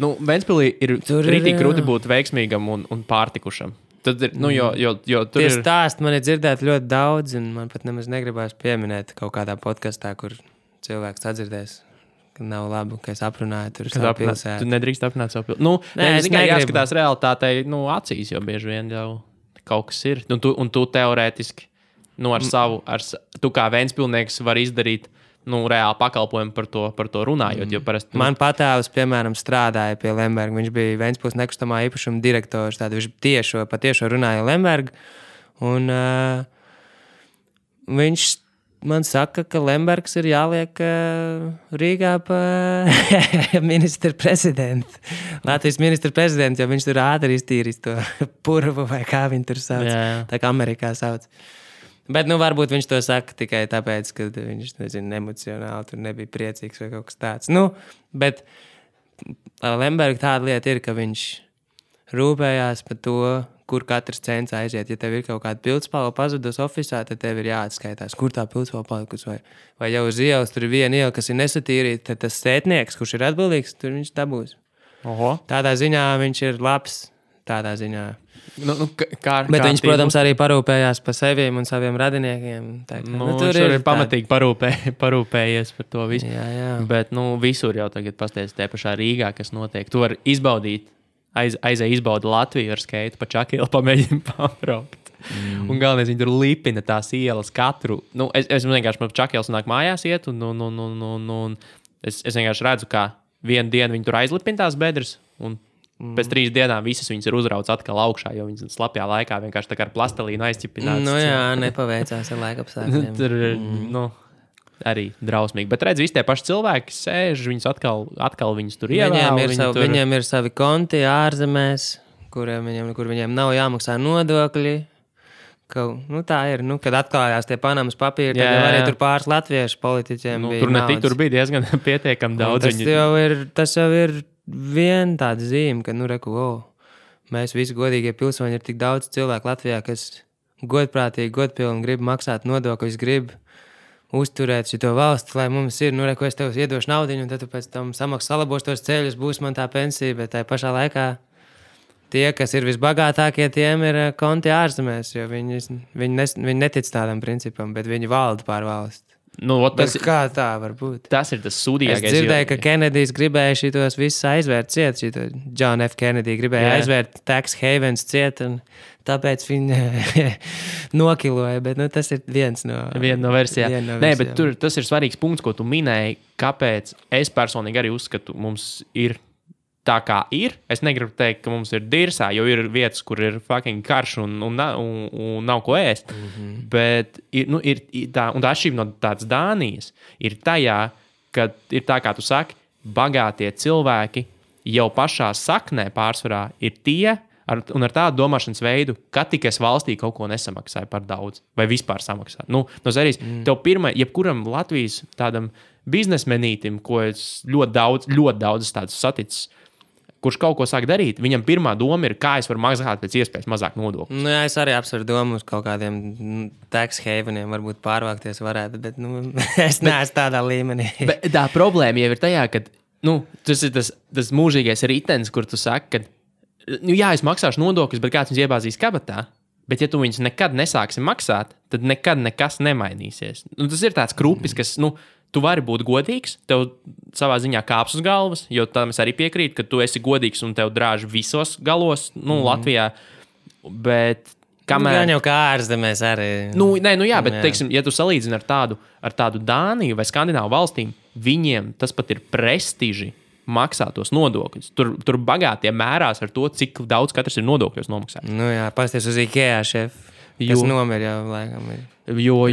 Ventspilī ir ritīgi grūti būt veiksmīgam un pārtikušam. Tad ir, jo tur ir... Stāsti man ir dzirdēt ļoti daudz, un man pat nemaz negribās pieminēt kaut kādā podkastā, kur cilvēks atdzirdēs, ka nav labi, ka es aprunāju tur savu pilsētu. Tu nedrīkst aprunāt savu pilsētu. Es tikai jāskatās realitātei bieži vien jau kaut kas ir. Un tu teorētiski, tu kā Ventspilnieks var izdarīt reāli pakalpojumi par to runājot. Jo parasti, Man patāvs, piemēram, strādāja pie Lemberga. Viņš bija Ventspils nekustamā īpašuma direktors. Viņš patiešo runāja Lemberga. Un viņš man saka, ka Lembergs ir jāliek Rīgā pa ministra prezidentu. Latvijas ministra prezidentu, jo viņš tur ātri iztīrīs to purvu vai kā viņi tur sauc. Jā. Tā kā Amerikā sauc. Bet, varbūt viņš to saka tikai tāpēc, ka viņš, emocionāli tur nebija priecīgs vai kaut kas tāds. Bet Lemberga tāda lieta ir, ka viņš rūpējās par to, kur katrs cents aiziet. Ja tev ir kaut kāda pildspalva pazudus ofisā, tad tev ir jāatskaitās, kur tā pildspalva palikusi. Vai jau uz ielas tur ir viena iela, kas ir nesatīrīta, tad tas sētnieks, kurš ir atbildīgs, tur viņš dabūs. Oho. Tādā ziņā viņš ir labs. Tādā ziņā. Bet viņš, protams, arī parūpējās par seviem un saviem radiniekiem. Tur ir pamatīgi parūpējies par to visu. Jā. Bet visur jau tagad pasties tie pašā Rīgā, kas notiek. Tu vari izbaudīt, izbaudi Latviju ar skeitu pa Čakielu, pamēģini pabraukt. Un galvenais, viņi tur lipina tās ielas katru. Es vienkārši pa Čakielu nāk mājās iet un es vienkārši redzu, kā vienu dienu viņi tur aizlipina tās bedres un pēc 3 dienām visas viņas ir uzrauts atkal augšā, jo viņas slapjā laikā vienkārši tā kā ar plastelīnu aizķipināts. Nepaveicās ar laikapstākļiem. Tur ir, arī drausmīgi. Bet redz, visi tie paši cilvēki sēž, viņus atkal viņus tur ievēl. Viņiem ir savi konti ārzemēs, kur viņiem nav jāmaksā nodokļi. Tā ir, kad atklājās tie Panamas papīri, tad jau arī tur pāris latviešu politiķiem bija tur naudas. Tur bija diezgan pietiekami daudz. Tas jau ir viena tāda zīme, ka, mēs visi godīgie pilsoņi ir tik daudz cilvēku Latvijā, kas godprātīgi, godpilni grib maksāt nodokļus, grib uzturēt šito valsti, lai mums ir, ko es tev iedošu naudiņu, un tad tu pēc tam salabos tos ceļus, būs man tā pensija, bet tajā pašā laikā tie, kas ir visbagātākie, tiem ir konti ārzemēs, jo viņi netic tādam principam, bet viņi valda pār valsti. Kā tā var būt? Tas ir tas sūdīgākais. Es dzirdēju, ka Kenedijs gribēja šitos visus aizvērt ciet. John F. Kennedy gribēja aizvērt tax havens ciet, un tāpēc viņi nokiloja. Bet tas ir viena no versijām. Nē, bet tas ir svarīgs punkts, ko tu minēji, kāpēc es personīgi arī uzskatu, mums ir tā kā ir. Es negribu teikt, ka mums ir dirsā, jo ir vietas, kur ir fucking karš un nav ko ēst. Bet ir tā, un tā atšķirība no tādas Dānijas ir tajā, ka ir tā, kā tu saki, bagātie cilvēki jau pašā saknē pārsvarā ir tie, un ar tādu domāšanas veidu, ka tikai es valstī kaut ko nesamaksāju par daudz, vai vispār samaksāju. Tev jebkuram Latvijas tādam biznesmenītim, ko es ļoti daudz tādus saticis, kurš kaut ko sāk darīt, viņam pirmā doma ir, kā es varu maksāt pēc iespējas mazāk nodokļu. Es arī apsveru domu uz kaut kādiem tax haveniem, varbūt pārvākties varētu, bet es neesmu tādā līmenī. Bet tā problēma jau ir tajā, ka tas ir tas mūžīgais ritenis, kur tu saki, ka es maksāšu nodokļus, bet kāds viņus iebāzīs kabatā. Bet ja tu viņus nekad nesāksi maksāt, tad nekad nekas nemainīsies. Tas ir tāds krupis, kas, tu vari būt godīgs, tev savā ziņā kāps uz galvas, jo tam es arī piekrītu, ka tu esi godīgs un tev drāž visos galos, Latvijā. Bet kamēr... Gan jau kā ārzemēs arī. Bet, teiksim, ja tu salīdzini ar tādu Dāniju vai Skandināvu valstīm, viņiem tas pat ir prestiži maksāt tos nodokļus. Tur bagātie mērās ar to, cik daudz katrs ir nodokļos nomaksājis. Pasties uz IKEA šefu. Kas nomir jau laikam ir. Jo.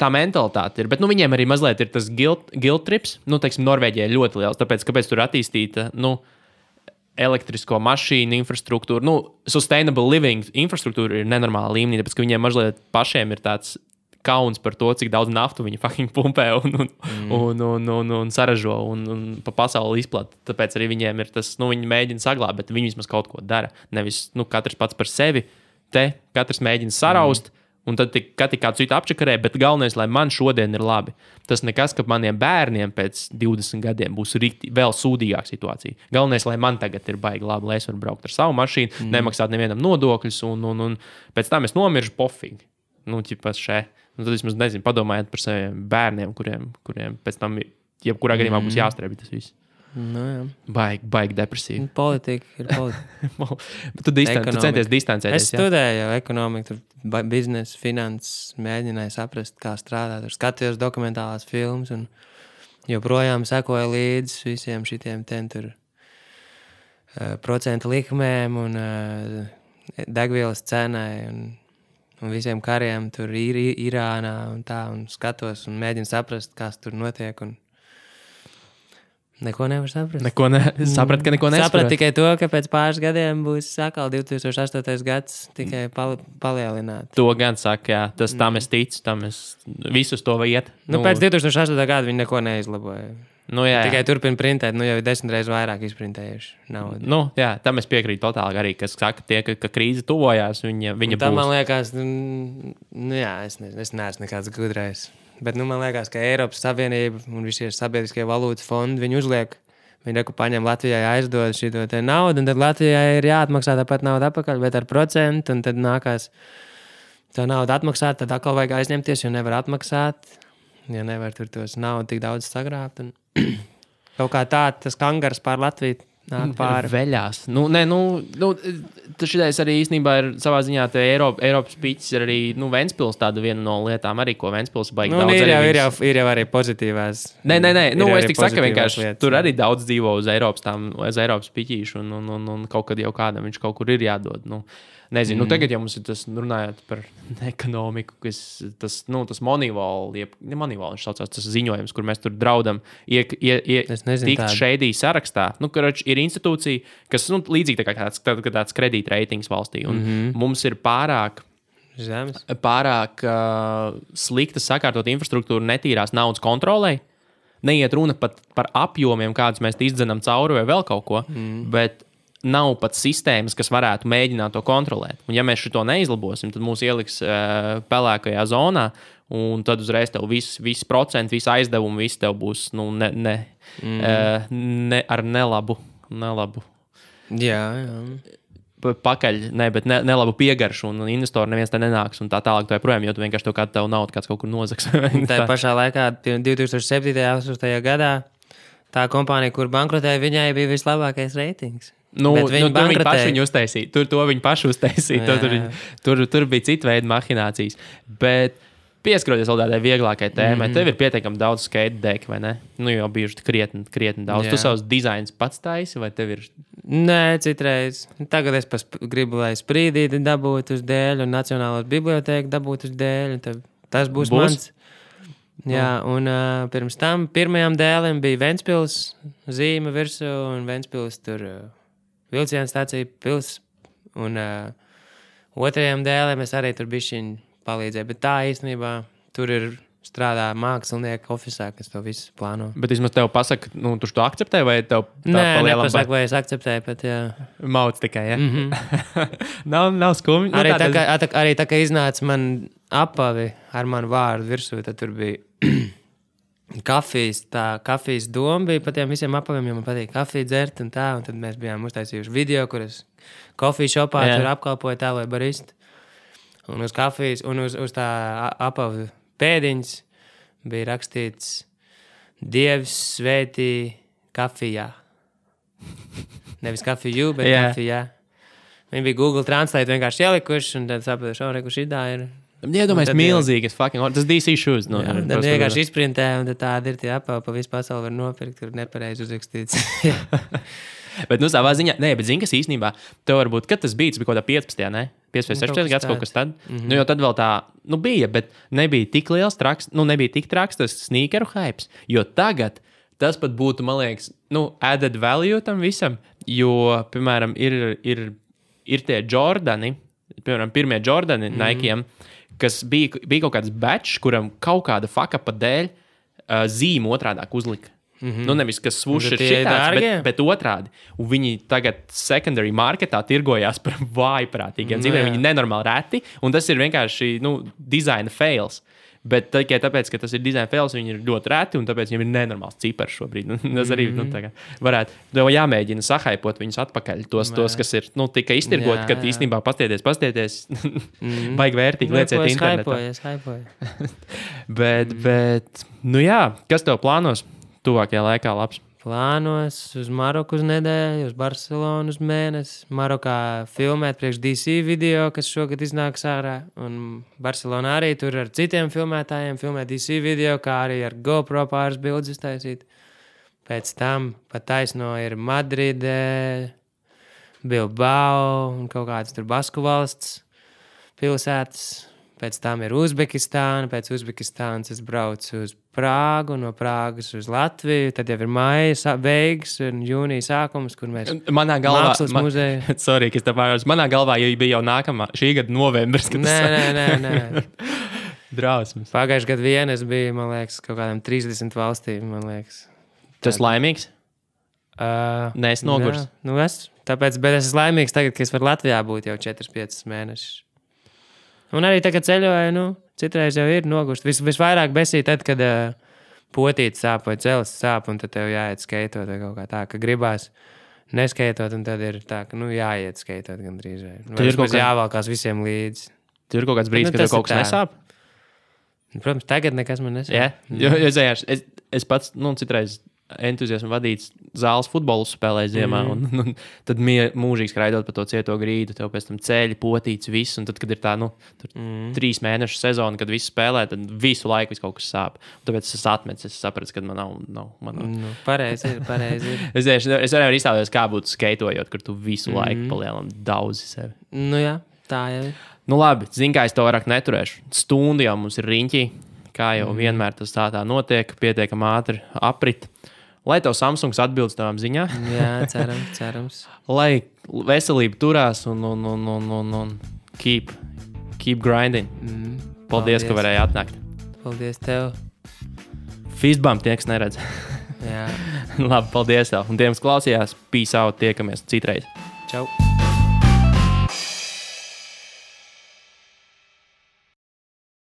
Tā mentalitāte ir. Bet viņiem arī mazliet ir tas guilt trips. Teiksim, Norvēģija ir ļoti liels. Tāpēc, kāpēc tur attīstīta elektrisko mašīnu infrastruktūra. Sustainable living infrastruktūra ir nenormāla līmenī. Tāpēc, ka viņiem mazliet pašiem ir tāds kauns par to, cik daudz naftu viņi fucking pumpē un saražo un pa pasauli izplata. Tāpēc arī viņiem ir tas, viņi mēģina saglābt, bet viņi vismaz kaut ko dara. Nevis, katrs pats par sevi. Katrs mēģina saraust, un tad kādu citu apčakarē, bet galvenais, lai man šodien ir labi. Tas nekas, ka maniem bērniem pēc 20 gadiem būs vēl sūdīgāka situācija. Galvenais, lai man tagad ir baigi labi, lai es varu braukt ar savu mašīnu, nemaksāt nevienam nodokļus, un pēc tam es nomiršu pofīgi. Tad vismaz padomājiet par saviem bērniem, kuriem pēc tam jebkurā gadījumā būs jāstrēbi tas viss. Jā. Baigi depresīvi. Politika ir politika. Tu centies distancēties. Es studēju jau ekonomiku, tur biznesu, finanses, mēģināju saprast, kā strādāt. Tur skatījos dokumentālās filmas un joprojām sekoju līdzi visiem šitiem tur procentu likmēm un degvielas cenai un visiem kariem tur Irānā un tā, un skatos un mēģinu saprast, kas tur notiek, un neko nevar saprast. Saprat, ka neko nesaprot. Saprat tikai to, ka pēc pāris gadiem būs atkal 2008. gads tikai palielināt. To gan saka, jā. Tam es ticu, visus to iet. Pēc 2008. gada viņi neko neizlaboja. Jā. Tikai turpina printēt, jau ir 10 reizes vairāk izprintējuši naudu. Jā, tam es piekrītu totāli arī, kas saka, ka krīze tuvojās, viņa būs. Tam man liekas, es neesmu nekāds gudrais. Bet man liekas, ka Eiropas Savienība un visi sabiedriskie valūtas fondi, viņi uzliek, viņi paņem Latvijai aizdod šito te naudu, un tad Latvijai ir jāatmaksā tāpat naudu atpakaļ, bet ar procentu, un tad nākās tā naudu atmaksāt, tad atkal vajag aizņemties, jo nevar atmaksāt, ja nevar tur tos naudu tik daudz sagrābt. Un kaut kā tā, tas kangars pār Latviju nāk pāri. Veļās. Šitais arī īstenībā ir savā ziņā Eiropas piķis ir arī, Ventspils tāda viena no lietām arī, ko Ventspils baigi daudz. Ir jau arī pozitīvās. Nē, es tik saku vienkārši, lietas, tur arī daudz dzīvo uz Eiropas piķīšu un kaut kad jau kādam viņš kaut kur ir jādod. Nezinu, tagad jau mums ir tas, runājot par ekonomiku, tas Moneyball, viņš saucās, tas ziņojums, kur mēs tur draudam tikt šeidī sarakstā. Ir institūcija, kas līdzīgi tāds kredītreitings valstī, un mums ir pārāk slikta sakārtot infrastruktūru netīrās naudas kontrolei. Neiet runa pat par apjomiem, kādus mēs izdzenam cauri vai vēl kaut ko, bet nav pat sistēmas, kas varētu mēģināt to kontrolēt. Un ja mēs šo neizlabosim, tad mūs ieliks pelēkajā zonā, un tad uzreiz tev visi procenti, visi aizdevumi, visi tev būs ar nelabu. Jā. Pakaļ, bet nelabu piegaršu, un investori neviens te nenāks, un tā tālāk to joprojām, jo tu vienkārši tev kādu naudu kāds kaut kur nozags. Tā pašā laikā 2007. 8. gadā tā kompānija, kur bankrotēja, viņai bija vislabākais reitings. Viņi paši viņu uztaisīja. To viņi paši uztaisīja. Tur bija cita veida mahinācijas. Bet pieskaroties vēl tādai vieglākai tēmai, tev ir pietiekami daudz skate deki, vai ne? Jau bijuši krietni daudz. Tu savus dizainus pats taisi, vai tev ir? Nē, citreiz. Tagad es gribu, lai sprīdīti dabūtu uz dēļu un Nacionālās bibliotēku dabūtu uz dēļu. Tas būs mans. Jā, un pirms tam pirmajām dēlēm bija Ventspils zīme virsū un Ventspils tur vilciena stācija pils. Un otrajām dēlēm es arī tur bišķiņ palīdzēju. Bet tā īstenībā tur ir strādā mākslinieki ofisā, kas to visu plāno. Bet vismaz tev pasaka, tu to akceptē vai tev tā palielam? Nē, nepasaka, vai es akceptēju, bet jā. Mauc tikai, ja? nav skumji. Arī tā, ka iznāca man apavi ar manu vārdu virsū, tad tur bija kafijas doma bija pa tiem visiem apaviem, jo man patīk kafiju dzert un tā, un tad mēs bijām uztaisījuši video, kur es kofiju šopā tur apkalpoju tā, vai baristu. Un uz kafijas, un uz tā apavu pēdiņas bija rakstīts Dievs svētī kafijā. Nevis kafiju, bet kafijā. Viņi bija Google Translate vienkārši ielikuši, un tad sapratuši, kur šitā ir. Iedomājies milzīgas tas DC shoes. Tad vienkārši izprintē, un tad tādi ir tie apavi, pa visu pasauli var nopirkt, tur nepareizi uzrakstīts. Bet savā ziņā, bet zini, kas īstenībā, tev varbūt, kad tas bija kaut kādā 15. ne? 15, 16 gads kaut kas tad. Jo tad vēl tā, bija, bet nebija tik liels traks, nebija tik traks tas sneakeru hypes, jo tagad tas pat būtu, man liekas, added value tam visam, jo, piemēram, ir tie Jordani, piemēram, pirmie Jordani Nike'iem, kas bija kaut kāds batch, kuram kaut kāda fakapa dēļ zīme otrādāk uzlika. Nevis, kas swoosh ir šitāds, bet otrādi. Un viņi tagad secondary marketā tirgojās par vājprātīgiem dzīviem. Viņi nenormāli reti, un tas ir vienkārši, designa fails. Bet tikai tāpēc, ka tas ir design fails, viņi ir ļoti reti, un tāpēc viņiem ir nenormāls cipars šobrīd. Tas arī varētu, tev jāmēģina sahaipot viņus atpakaļ. Tos kas ir tikai iztirgoti, kad īstenībā pastieties, baigi vērtīgi lieciet internetā. Es haipoju. bet, kas tev plānos tuvākajā laikā labs? Plānos uz Maroku uz nedēļu, uz Barcelonu uz mēnesi. Marokā filmēt priekš DC video, kas šogad iznāks ārā. Un Barcelonā arī tur ar citiem filmētājiem filmēt DC video, kā arī ar GoPro pāris bildes iztaisīt. Pēc tam pat taisno ir Madride, Bilbao un kaut kāds tur Basku valsts pilsētas. Pēc tam ir Uzbekistāna, pēc Uzbekistānas es braucu uz Prāgu, no Prāgas uz Latviju, tad jau ir maija beigas un jūnija sākums, kur mēs mākslas muzeju. Sorry, ka es tā pārējos. Manā galvā jau bija jau nākamā, šī gada novembris. Nē. Drausmas. Pagājuši gadu vien es biju, man liekas, kaut kādām 30 valstīm, man liekas. Tu esi laimīgs? Nē, es nogurs. Tāpēc, bet es esmu laimīgs tagad, ka es varu Latvijā būt jau 4-5 mēnešus. Un arī tagad ceļoju, citreiz jau ir nogurst. Visvairāk besī tad, kad potīte sāp vai celis sāp, un tad tev jāiet skeitot vai kaut kā tā, ka gribās neskeitot, un tad ir tā, ka jāiet skeitot gandrīz. Vai vismaz jāvalkās visiem līdzi. Tur ir kaut kāds brīdis, kad tev kaut kas nesāp? Protams, tagad nekas man nesāp. Jā, es pats, citreiz entuziasmu vadīts zāles futbolu spēlē ziemā, un tad mūžīgi skraidot pa to cieto grīdu, tev pēc tam ceļi, potīts, viss, un tad, kad ir tā, 3 mēnešu sezona, kad visi spēlē, tad visu laiku kaut kas sāp. Un tāpēc es atmetu, es sapratu, ka man nav. Pareizi ir. Es varēju iztēloties, kā būtu skeitojot, kur tu visu laiku palielam daudzi sevi. Jā, tā jau ir. Labi, zini, kā es to vairāk neturēšu. Stundu jau mums ir riņķī, kā jau vienmēr tas tā notiek, pietiekami ātri aprit. Lai tev Samsungs atbilst tavām ziņām. Jā, cerams. Lai veselība turās un keep grinding. Paldies, ka varēji atnākt. Paldies tev. Fistbump tie, kas neredz. Jā. Labi, paldies tev. Un tiem, kas klausījās, peace out, tiekamies citreiz. Čau.